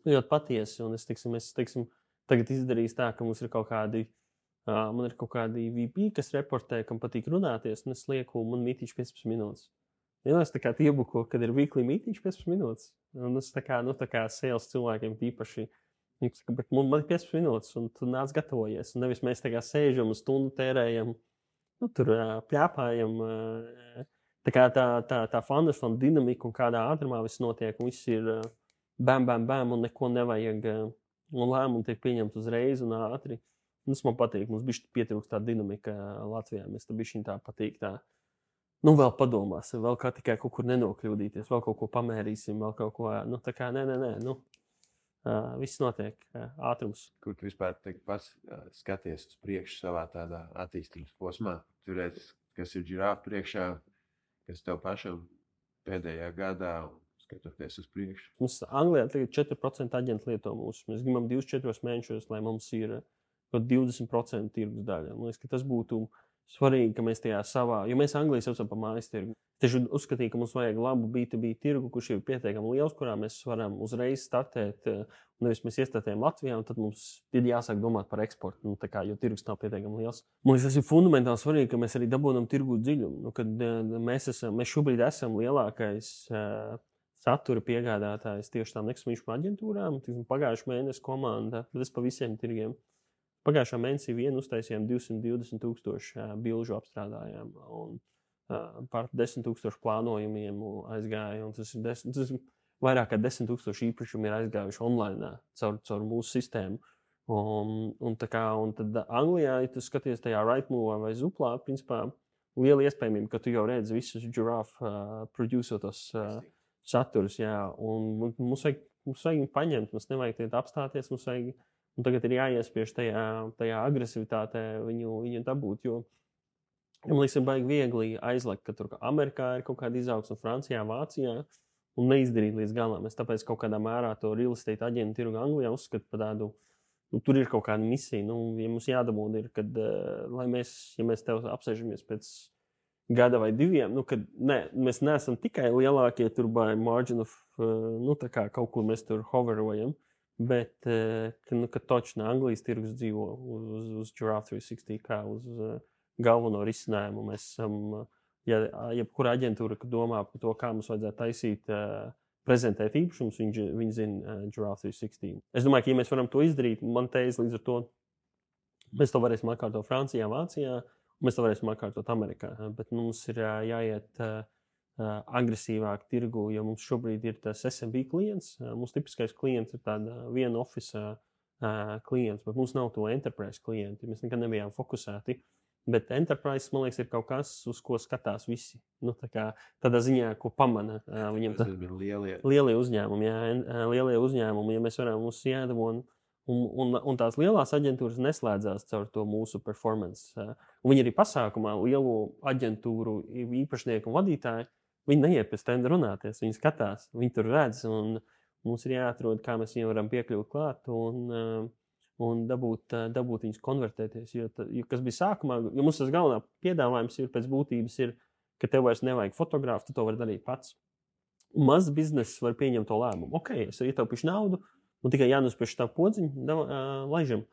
ļoti patiesi. Un es tagad izdarīju tā, ka mums ir kaut kādi VP, kas reportē, kam patīk runāties, un es lieku, man mītīšu 15 minūtes. Ja es tā kā iebuko, kad ir weekly mītīšu 15 minūtes. Un es tā kā sales cilvēkiem īpaši. Bet man ir 15 minūtes, un tu nāc gatavojies. Un nevis mēs tā kā sēžam un stundu tērējam, tur pļāpājam. Tā Founders Fund dinamika un kādā ātrumā viss notiek, un viss ir bam, un neko nevajag. Un lēmumi tiek pieņemti uzreiz un ātri. Un tas man patīk. Mums bišķi pietrūkst tā dinamika Latvijā. Mēs tā bišķiņ tā patīk tā. Vēl padomāsim, vēl kā tikai kaut kur nenokļūdīties, vēl kaut ko pamērīsim, vēl kaut ko, nē. Viss notiek ātrums. Kur tu vispār pats skaties uz priekšu savā tādā attīstības posmā? Tur redz, kas ir žirāfa priekšā, kas tev pašam pēdējā gadā, skatoties uz priekšu. Mums Anglijā tagad 4% aģenti lieto mūsu. Mēs gribam 24 mēnešos, lai mums ir 20% tirgus daļa. Man liekas, ka tas būtu svarīgi, ka mēs tajā savā, jo mēs Anglijā saucam par mājas tirgu. Tieši uzskatīju, ka mums vajag labu B2B tirgu, kurš ir pietiekami liels, kurā mēs varam uzreiz startēt. Nevis mēs iestartējam Latvijā, un tad mums ir jāsāk domāt par eksportu, jo tirgus nav pietiekami liels. Man liekas, tas ir fundamentāli svarīgi, ka mēs arī dabūjam tirgu dziļumu. Kad mēs šobrīd esam lielākais satura piegādātājs tieši tām nekustamību aģentūrām. Pagājušā mēneša komanda, bet es pa visiem tirgiem. Pagājušā mēnesī vien uztaisījām 220,000 bilžu apstrādājām un par 10,000 plānojumiem aizgāja. Tas ir vairāk kā 10,000 īpašumu ir aizgājuši online caur mūsu sistēmu. Un tad Anglijā, ja tu skaties tajā Rightmove vai Zuplā, principā liela iespējamība, ka tu jau redzi visus Giraffe producētos saturus. Jā, un mums vajag paņemt, mums nevajag tiet apstāties, mums vajag. Un tagad ir jāiespiež tajā agresivitātē viņu dabūt, jo man liekas, ir baigi viegli aizlekt, ka tur Amerikā ir kaut kāda izaugsme, Francijā, Vācijā, un neizdarīt līdz galam. Es tāpēc kaut kādā mērā to real estate aģentu tirgu Anglijā uzskatu par tādu, tur ir kaut kāda misija. Ja mums jādabūda ir, kad, ja mēs tev apsēžamies pēc gada vai diviem, kad mēs neesam tikai lielākie tur by margin of, tā kā kaut kur mēs tur hoverojam, bet, kad točnā Anglijas tirgus dzīvo uz Giraffe 360, kā uz galveno risinājumu. Mēs esam, jebkura aģentūra, kad domā par to, kā mums vajadzētu taisīt, prezentēt īpašumus, viņi zina Giraffe 360. Es domāju, ka, ja mēs varam to izdarīt, man teiz līdz ar to, mēs to varēsim atkārtot Francijā, Vācijā, un mēs to varēsim atkārtot Amerikā. Bet mums ir jāiet agresīvāk tirgu, jo mums šobrīd ir tas SMB klients. Mums tipiskais klients ir tāda viena office klients, bet mums nav to enterprise klienti. Mēs nekad nebijām fokusēti. Bet enterprise, man liekas, ir kaut kas, uz ko skatās visi. Tādā ziņā, ko pamana viņam lielie uzņēmumi. Lielie uzņēmumi, ja mēs varam mums jādabon. Un tās lielās aģentūras neslēdzās caur to mūsu performance. Un viņi arī pasākumā lielo aģentūru īpašnieku un vadītāju, viņi neiet pēc tenda runāties, viņi skatās, viņi tur redz, un mums ir jāatrod, kā mēs viņiem varam piekļūt klāt un dabūt viņus konvertēties. Jo kas bija sākumā, jo mums tas galvenā piedāvājums ir pēc būtības, ka tev vairs nevajag fotogrāfu, tu to vari darīt pats. Mazs bizness var pieņemt to lēmumu. Ok, es ietaupīšu naudu, un tikai jānospiež tā podziņa, laižam.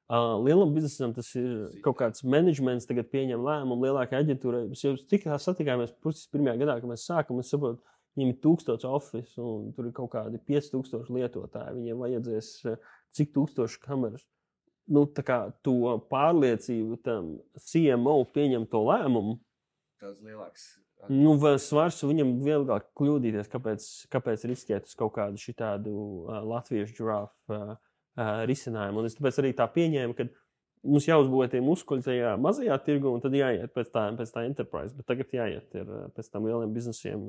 Lielam biznesam tas ir kaut kāds menedžments, tagad pieņem lēmumu lielākai aģentūrai. Mēs jau tikā satikāmies pirmajā gadā, kad mēs sākam, es saprotu, viņiem ir 1000 office un tur ir kaut kādi 5000 lietotāji. Viņiem vajadzēs cik 1000 kameras. Tā kā to pārliecību tam CMO pieņem to lēmumu. Tāds lielāks. Svars viņam vieglāk kļūdīties, kāpēc riskēt uz kaut kādu šitādu latviešu Giraffe risinājumu. Un es tāpēc arī tā pieņēmu, ka mums jāuzbūvē tie muskuļi tajā mazajā tirgu, un tad jāiet pēc tā enterprise, bet tagad jāiet pēc tam lieliem biznesiem.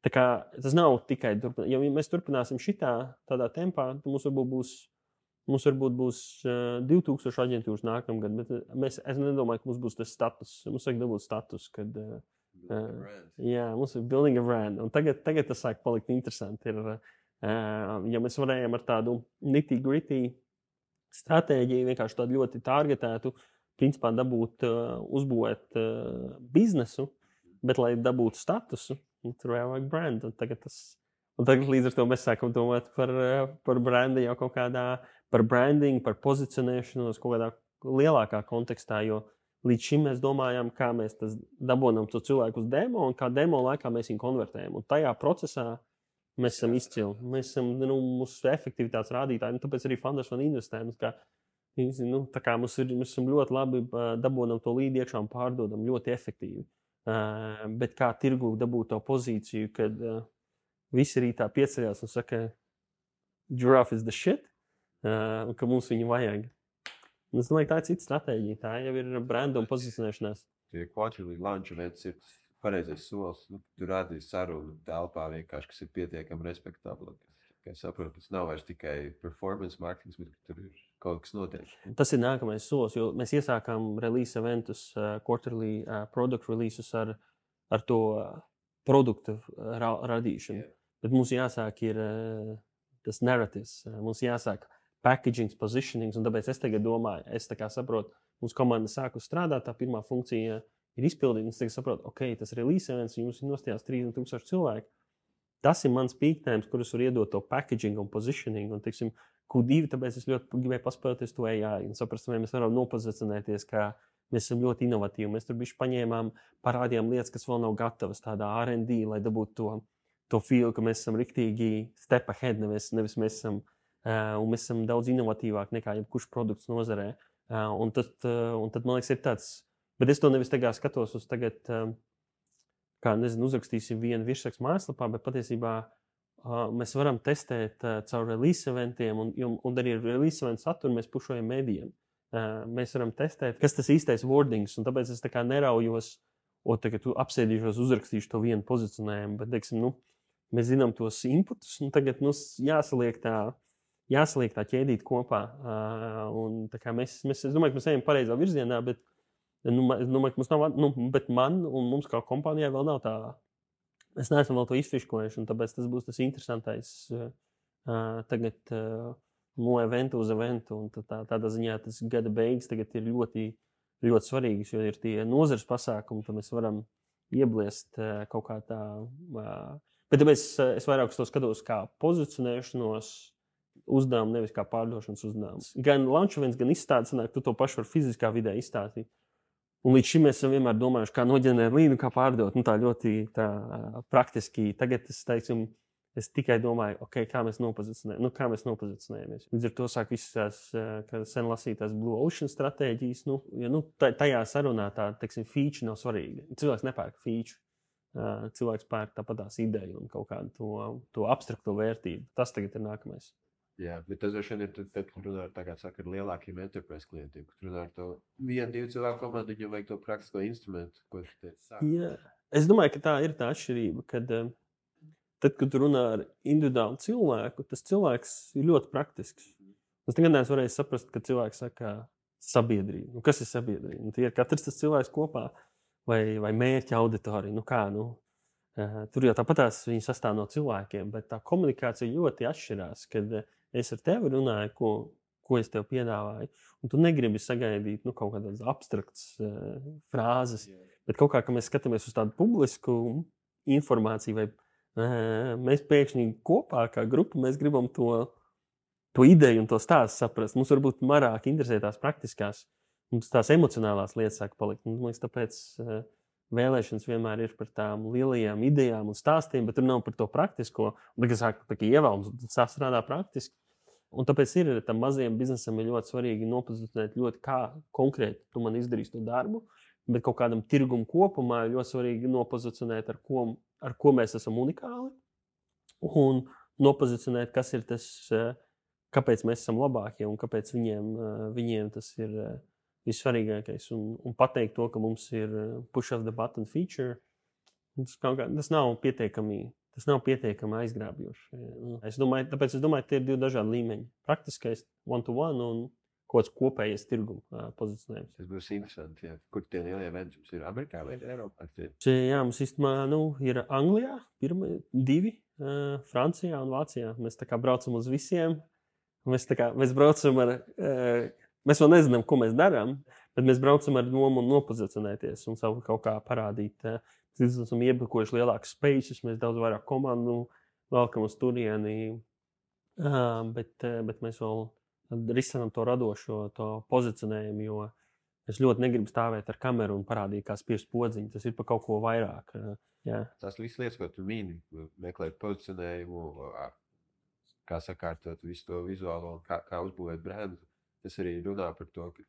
Tā kā tas nav tikai turpināt. Ja mēs turpināsim tādā tempā, tad mums varbūt būs 2000 aģentūras nākamgad, bet es nedomāju, ka mums būs tas status. Mums vajag dabūt status, kad mums ir building a brand. Un tagad tas sāk palikt interesanti. Ja mēs varējām ar tādu nitty-gritty stratēģiju, vienkārši tādu ļoti targetētu, principā uzbūvēt biznesu, bet lai dabūtu statusu, tur vajag brand. Un tagad līdz ar to mēs sākam domāt par brandi jau kaut kādā, par branding, par pozicionēšanos kaut kādā lielākā kontekstā, jo līdz šim mēs domājam, kā mēs dabonam to cilvēku uz demo un kā demo laikā mēs viņu konvertējam. Un tajā procesā mēs esam izcili. Mēs esam mūsu efektivitātes rādītāji, tāpēc arī Founders Fund investējam. Tā kā mēs esam ļoti labi dabonam to līdi iekšā un pārdodam ļoti efektīvi. Bet kā tirgu dabūt to pozīciju, kad visi rītā pieceļās un saka, Giraffe is the shit, un ka mums viņu vajag. Un es domāju, tā ir cita stratēģija. Tā jau ir branda un pozicionēšanās. Tie quarterly launch events ir pareizais solis. Tu rādīji sarunu telpā vienkārši, kas ir pietiekami respektabli. Kā es saprotu, tas nav vairs tikai performance marketing, bet tur ir kaut kas notiek. Tas ir nākamais solis, jo mēs iesākām release eventus, quarterly product releases ar to produktu radīšanu. Yeah. Bet mums jāsāk ir tas narratīvs, mums jāsāk packaging, positioning, un tāpēc es tagad domāju, es tā kā saprotu, mums komanda sāku strādāt, tā pirmā funkcija ir izpildīta, un es tagad saprotu, ok, tas release events, jums ir nostājās 30,000 cilvēku. Tas ir mans peak times, kurus var iedot to packaging un positioning, un, teiksim, Q2, tāpēc es ļoti gribēju paspēlēties to AI, un saprast, vai mēs varam nopozicionēties, kā mēs esam ļoti inovatīvi. Mēs tur bišķi paņēmām, parādījām lietas, kas vēl nav gatavas, tādā R&D, lai dabūtu to feel, ka mēs esam riktīgi step ahead, nevis mēs esam, un mēs esam daudz inovatīvāk nekā jebkurš produkts nozarē. Un tad, man liekas, ir tāds, bet es to nevis tagad skatos uz tagad, kā, nezinu, uzrakstīsim vienu virsrakstu mājaslapā, bet patiesībā mēs varam testēt caur release eventiem, un arī ar release eventu saturu mēs pušojam mēdījiem. Mēs varam testēt, kas tas īstais wordings, un tāpēc es tā kā neraujos, tagad apsēdīšos, uzrakstīšu to vienu pozicionējumu, bet, teiksim, mēs zinām tos inputus, un tagad jāsaliek tā ķēdīt kopā. Un tā kā es domāju, ka mēs ejam pareizā virzienā, bet es domāju, ka mums nav, bet man un mums kā kompānijai vēl nav tā. Mēs neesam vēl to izfiškojuši, un tāpēc tas būs tas interesantais tagad no eventa uz eventu. Un tādā ziņā tas gada beigas tagad ir ļoti, ļoti svarīgas, jo ir tie nozares pasākumi, tad mēs varam iebliest kaut kā tā. Bet tāpēc es vairāk uz to skatos kā pozicionēšanos uzdevumu, nevis kā pārdošanas uzdevumu. Gan launch events, gan izstādes, tu to pašu var fiziskā vidē izstāstīt. Un līdz šim mēs esam vienmēr domājuši, kā noģenerēt līdu, kā pārdot. Tā ļoti praktiski. Tagad es tikai domāju, okay, kā mēs nopozicionējamies. Līdz ar to sāk visas tās, kā sen lasītās Blue Ocean stratēģijas. Tajā sarunā tā, feature nav svarīga. Cilvēks nepērk feature. Cilvēks pērk tāpatās ideju un kaut kādu to abstrakto vērtību. Tas tagad ir nākamais. Jā, bet tas vien ir tad, kad runā ar lielākiem enterprise klientiem, kad runā ar to 1-2 cilvēku komandu, viņam vajag to praktisko instrumentu, ko tu teici sāk. Jā, es domāju, ka tā ir tā atšķirība, kad tad, kad tu runā ar individuālu cilvēku, tas cilvēks ir ļoti praktisks. Es nekad neesmu varējis saprast, ka cilvēks saka sabiedrība. Kas ir sabiedrība? Tie ir katrs tas cilvēks kopā vai mērķa auditorija. Tur jau tāpatās viņi sastāv no cilvēkiem, bet tā komunikācija ļoti atšķirās, kad es ar tevi runāju, ko es tev piedāvāju, un tu negribi sagaidīt kaut kādas abstraktas frāzes, bet kaut kā, ka mēs skatāmies uz tādu publisku informāciju, vai mēs pēkšņi kopā kā grupa, mēs gribam to ideju un to stāstu saprast. Mums varbūt marāk interesē tās praktiskās, mums tās emocionālās lietas sāk palikt. Un, man liekas, tāpēc vēlēšanas vienmēr ir par tām lielajām idejām un stāstiem, bet tur nav par to praktisko. Un tagad sāk ievēlams, sastrādā praktiski. Un tāpēc ir tam mazajam biznesam ir ļoti svarīgi nopozicionēt ļoti kā konkrēti tu man izdarīsi to darbu, bet kaut kādam tirgumu kopumā ir ļoti svarīgi nopozicionēt, ar ko mēs esam unikāli, un nopozicionēt, kas ir tas, kāpēc mēs esam labākie un kāpēc viņiem tas ir vissvarīgākais. Un pateikt to, ka mums ir push of the button feature, tas nav pietiekami aizgrābjoši. Tāpēc es domāju, ka tie ir 2 dažādi līmeņi. Praktiskais one-to-one un kaut kāds kopējais tirguma pozicionējums. Tas būs interesanti, jā. Kur tie lielie eventi jums ir? Amerikā vai Eiropā? Jā, mums īstenībā ir Anglijā, 2, Francijā un Vācijā. Mēs tā kā braucam uz visiem. Mēs braucam ar... Mēs vēl nezinām, ko mēs darām, bet mēs braucam ar domu un nopozicionēties un savu kaut kā parādīt. Mēs esam iebukojuši lielākus spaces, mēs daudz vairāk komandu velkam uz turieni, bet mēs vēl risinām to radošo, to pozicionējumu, jo es ļoti negribu stāvēt ar kameru un parādīt, kā spiest podziņu. Tas ir par kaut ko vairāk. Jā. Tās visas lietas, ko tu mīni, meklēt pozicionējumu, kā sakārtot visu to vizuālo, kā uzbūvēt brendu. Tas arī runā par to, ka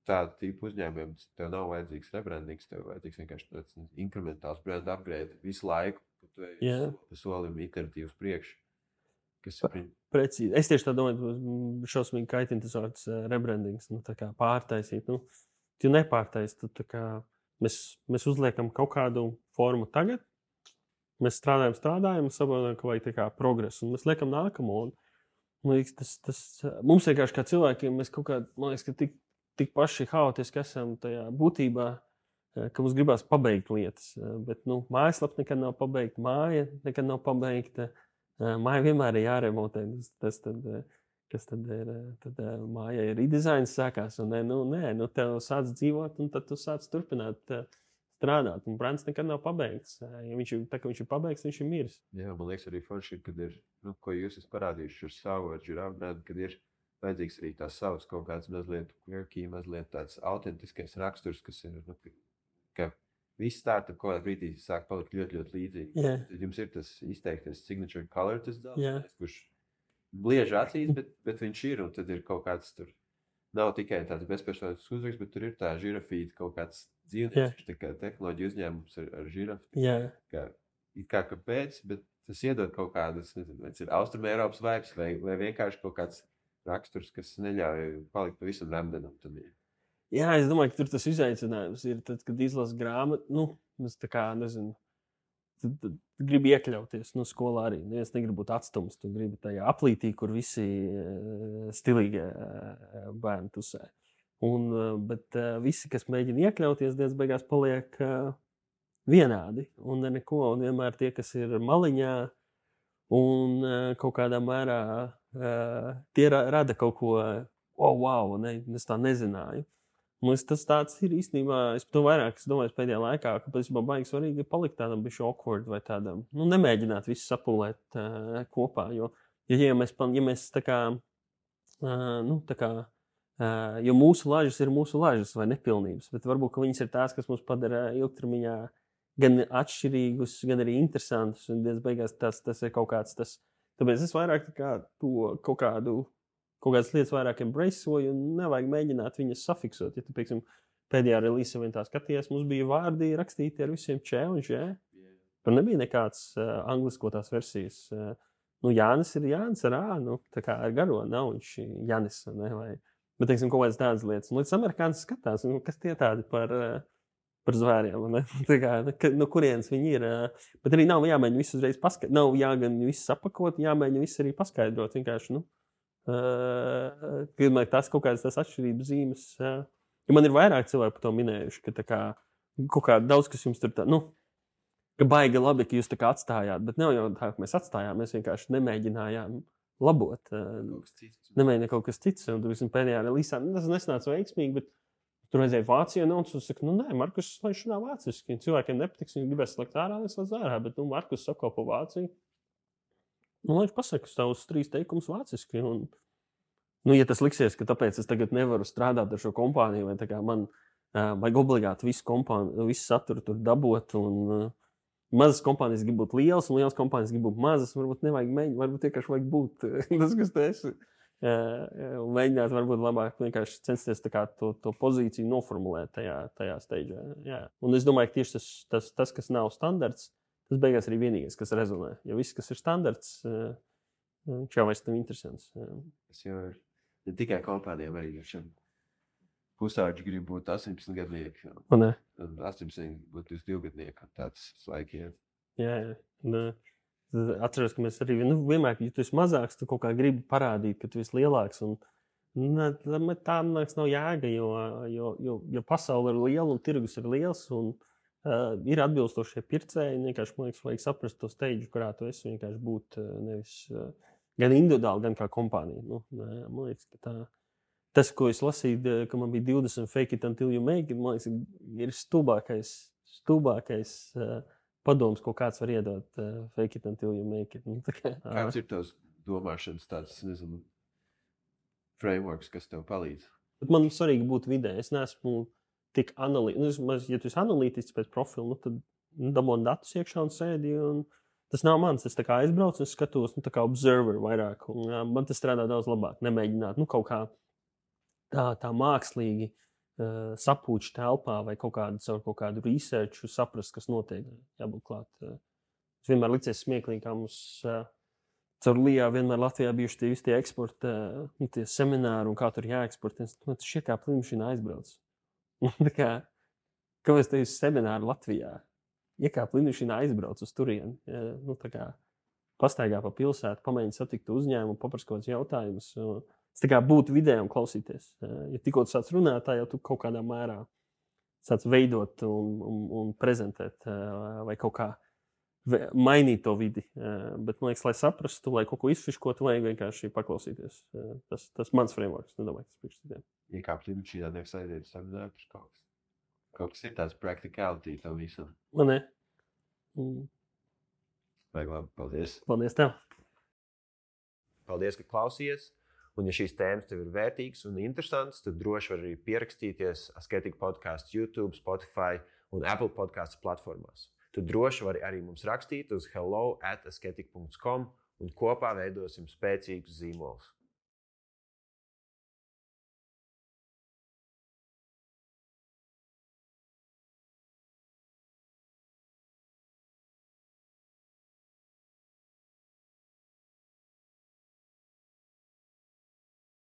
tādu tipu uzņēmumiem tev nav vajadzīgs rebrandings, tev vajadzīgs vienkārši tāds inkrementāls brand upgrade visu laiku, ka tu ej pa solim iteratīvs priekš. Precīzi. Es tieši tā domāju, šausmīgi kaitina tas vārds rebrandings, tā kā pārtaisīt. Tu nepārtaisi, mēs uzliekam kaut kādu formu tagad, mēs strādājam, saprotam, ka vajag tā kā progresu, un mēs liekam nākamo. Man liekas, mums vienkārši kā cilvēkiem, mēs kaut kā, man liekas, ka tik paši haotiski esam tajā būtībā, ka mums gribās pabeigt lietas. Bet mājaslapa nekad nav pabeigta, māja nekad nav pabeigta. Māja vienmēr ir jāremontē. Kas tad ir? Tad mājai ir redizains sākās. Un tev sāc dzīvot, un tad tu sāc turpināt strādāt. Un brands nekad nav pabeigts. Ja viņš ir pabeigts, viņš ir miris. Jā, man liekas, arī forši, kad ir, ko jūs esat parādījuši ar savu Giraffe brandu, kad ir vajadzīgs arī tās savas kaut kāds mazliet quirky, mazliet tāds autentiskais raksturs, kas ir, ka visi startup kaut kādā brīdī sāk palikt ļoti, ļoti līdzīgi. Yeah. Tad jums ir tas izteiktais signature color, tas Yeah. kurš blieži acīs, bet viņš ir, un tad ir kaut kāds tur, nav tikai tāds bezpersonīgs uzraksts, bet tur ir tā žirafīta kaut kāds dzīvnieks, tā kā tehnoloģija uzņēmums ar žirafi. Yeah. Kā kāpēc, bet tas iedod kaut kādas, nezinu, vai tas ir Austrum Eiropas vibes, vai vienkārši kaut kāds raksturs, kas neļauj palikt pavisam remdenam. Jā, es domāju, ka tur tas izaicinājums ir tad, kad izlasu grāmatu, es tā kā, nezinu, tu gribi iekļauties, skolā arī. Es negribu būt atstums, tu gribi tajā aplītī, kur visi stilīgie bērni tusē. Bet visi, kas mēģina iekļauties, diez beigās paliek vienādi un neko, un vienmēr tie, kas ir maliņā un kaut kādā mērā tie rada kaut ko, wow, es tā nezināju. Tas tāds ir īstenībā, es to vairāk domāju pēdējā laikā, ka patiesībā baigi svarīgi ir palikt tādam bišķi awkward vai tādam, nemēģināt visu sapulēt kopā, jo mēs tā kā, jo mūsu lažas ir mūsu lažas vai nepilnības, bet varbūt, ka viņas ir tās, kas mums padara ilgtermiņā gan atšķirīgus, gan arī interesantus, un diez beigās tas ir kaut kāds tas. Tāpēc es vairāk to kaut kādas lietas vairāk embraceoju un nevajag mēģināt viņas safiksot. Ja tu, pieksim, pēdējā relīzē vien tā skaties, mums bija vārdi rakstīti ar visiem č un ž. Tur nebija nekāds angliskotās versijas. Jānis ir Jānis ar ā, tā kā ar garo nav viņš Janis, ne, vai. Bet, teiksim, kaut kādas tādas lietas. Un līdz amerikānis skatās, kas tie tādi par zvēriem, ne? Tā kā, no kurienes viņi ir. Bet arī nav jāmēģina visu uzreiz paskaidrot. Nav jāgan visu sapakot, jāmēģina visu arī paskaidrot. Vienkārši, tas kaut kādas tās atšķirības zīmes. Ja man ir vairāk cilvēku par to minējuši, ka tā kā kaut kā daudz, kas jums tur tā, ka baigi labi, ka jūs tā kā atstājāt, bet nav jau tā, ka mēs atstājām, mēs vienkārši nemēģinājām labot. Nemēģinājām kaut kas cits. Un tur visam pēdējā relīzā, tas nesnāca veiksmīgi, bet tur aizēja Vācijā, un tu saki, Markus, lai viņš runā vāciski. Cilvēkiem nepatiks, viņi gribēs slēgt ārā, neslēdz ārā, bet Markus apkalpo Vāciju. Lai viņš pasaka savus 3 teikumus vāciski. Un, ja tas liksies, ka tāpēc es tagad nevaru strādāt ar šo kompāniju, vai tā kā man vajag obligāti visu saturu tur dabot, un mazas kompānijas grib būt lielas, un lielas kompānijas grib būt mazas, varbūt nevajag mēģināt, varbūt vienkārši vajag būt tas, kas tu esi. Un mēģināt varbūt labāk vienkārši censties to pozīciju noformulēt tajā steidžā. Jā. Un es domāju, ka tieši tas, kas nav standarts, tas beigās arī vienīgais, kas rezonē. Jo viss, kas ir standarts, viņš jau vairs nav interesants. Tas jau ir ne tikai kompānijām, arī pusauģi grib būt 18 gadnieki. Un 18 būt 22 gadnieki. Tāds laiki iet. Jā. Atceros, ka mēs arī vienmēr, ja tu esi mazāks, tu kaut kā gribi parādīt, ka tu esi lielāks. Un tā, man liekas, nav jēga, jo pasaule ir liela un tirgus ir liels. Un ir atbilstošie pircēji. Vienkārši, man liekas, vajag saprast to steidžu, kurā tu esi. Vienkārši būt nevis gan individuāli, gan kā kompānija. Man liekas, ka tas, ko es lasīju, ka man bija 20 fake it until you make it, man liekas, ir stulbākais padoms, ko kāds var iedot fake it until you make it. Kāds ir tavs domāšanas tāds, nezinu, frameworks, kas tev palīdz? Bet man svarīgi būt vidē. Es neesmu tik analītisks. Ja tu esi analītisks pēc profila, tad dabūni datus iekšā un sēdi. Un tas nav mans. Es tā kā aizbraucu un skatos, tā kā observer vairāk. Un, man tas strādā daudz labāk. Nemēģināt, kaut kā tā mākslīgi sapūču telpā vai kaut kādu researchu saprast, kas notiek. Jābūt klāt. Es vienmēr licies smieklīgi, kā mums caur Lijā vienmēr Latvijā bijuši tie eksporta, tie semināri un kā tur jāeksportē. Tas šie kā plīmšina aizbrauc. Kāpēc te ir semināri Latvijā? Iekāp plīmšina aizbrauc uz turieni. Pastaigā pa pilsētu, pamēģini satikt uzņēmumu, paprast kaut kādus jautājumus. Tas tā kā būt vidē un klausīties. Ja tikko tu sāc runāt, tā jau tu kaut kādā mērā sāc veidot un prezentēt vai kaut kā mainīt to vidi. Bet, man liekas, lai saprastu, lai kaut ko izfiškotu, vajag vienkārši paklausīties. Tas mans frameworks, nedomāju, tas priekš citiem. Iekāpt lidmašīnā, nevis aiziet uz savu darbu, kaut kas ir tāds practicality tam visam. Man ne. Vajag labi, paldies. Paldies tev. Paldies, ka klausies. Un, ja šīs tēmas tev ir vērtīgas un interesantas, tad droši var arī pierakstīties Asketika podcasts YouTube, Spotify un Apple podcasts platformās. Tu droši vari arī mums rakstīt uz hello@asketika.com un kopā veidosim spēcīgus zīmolus.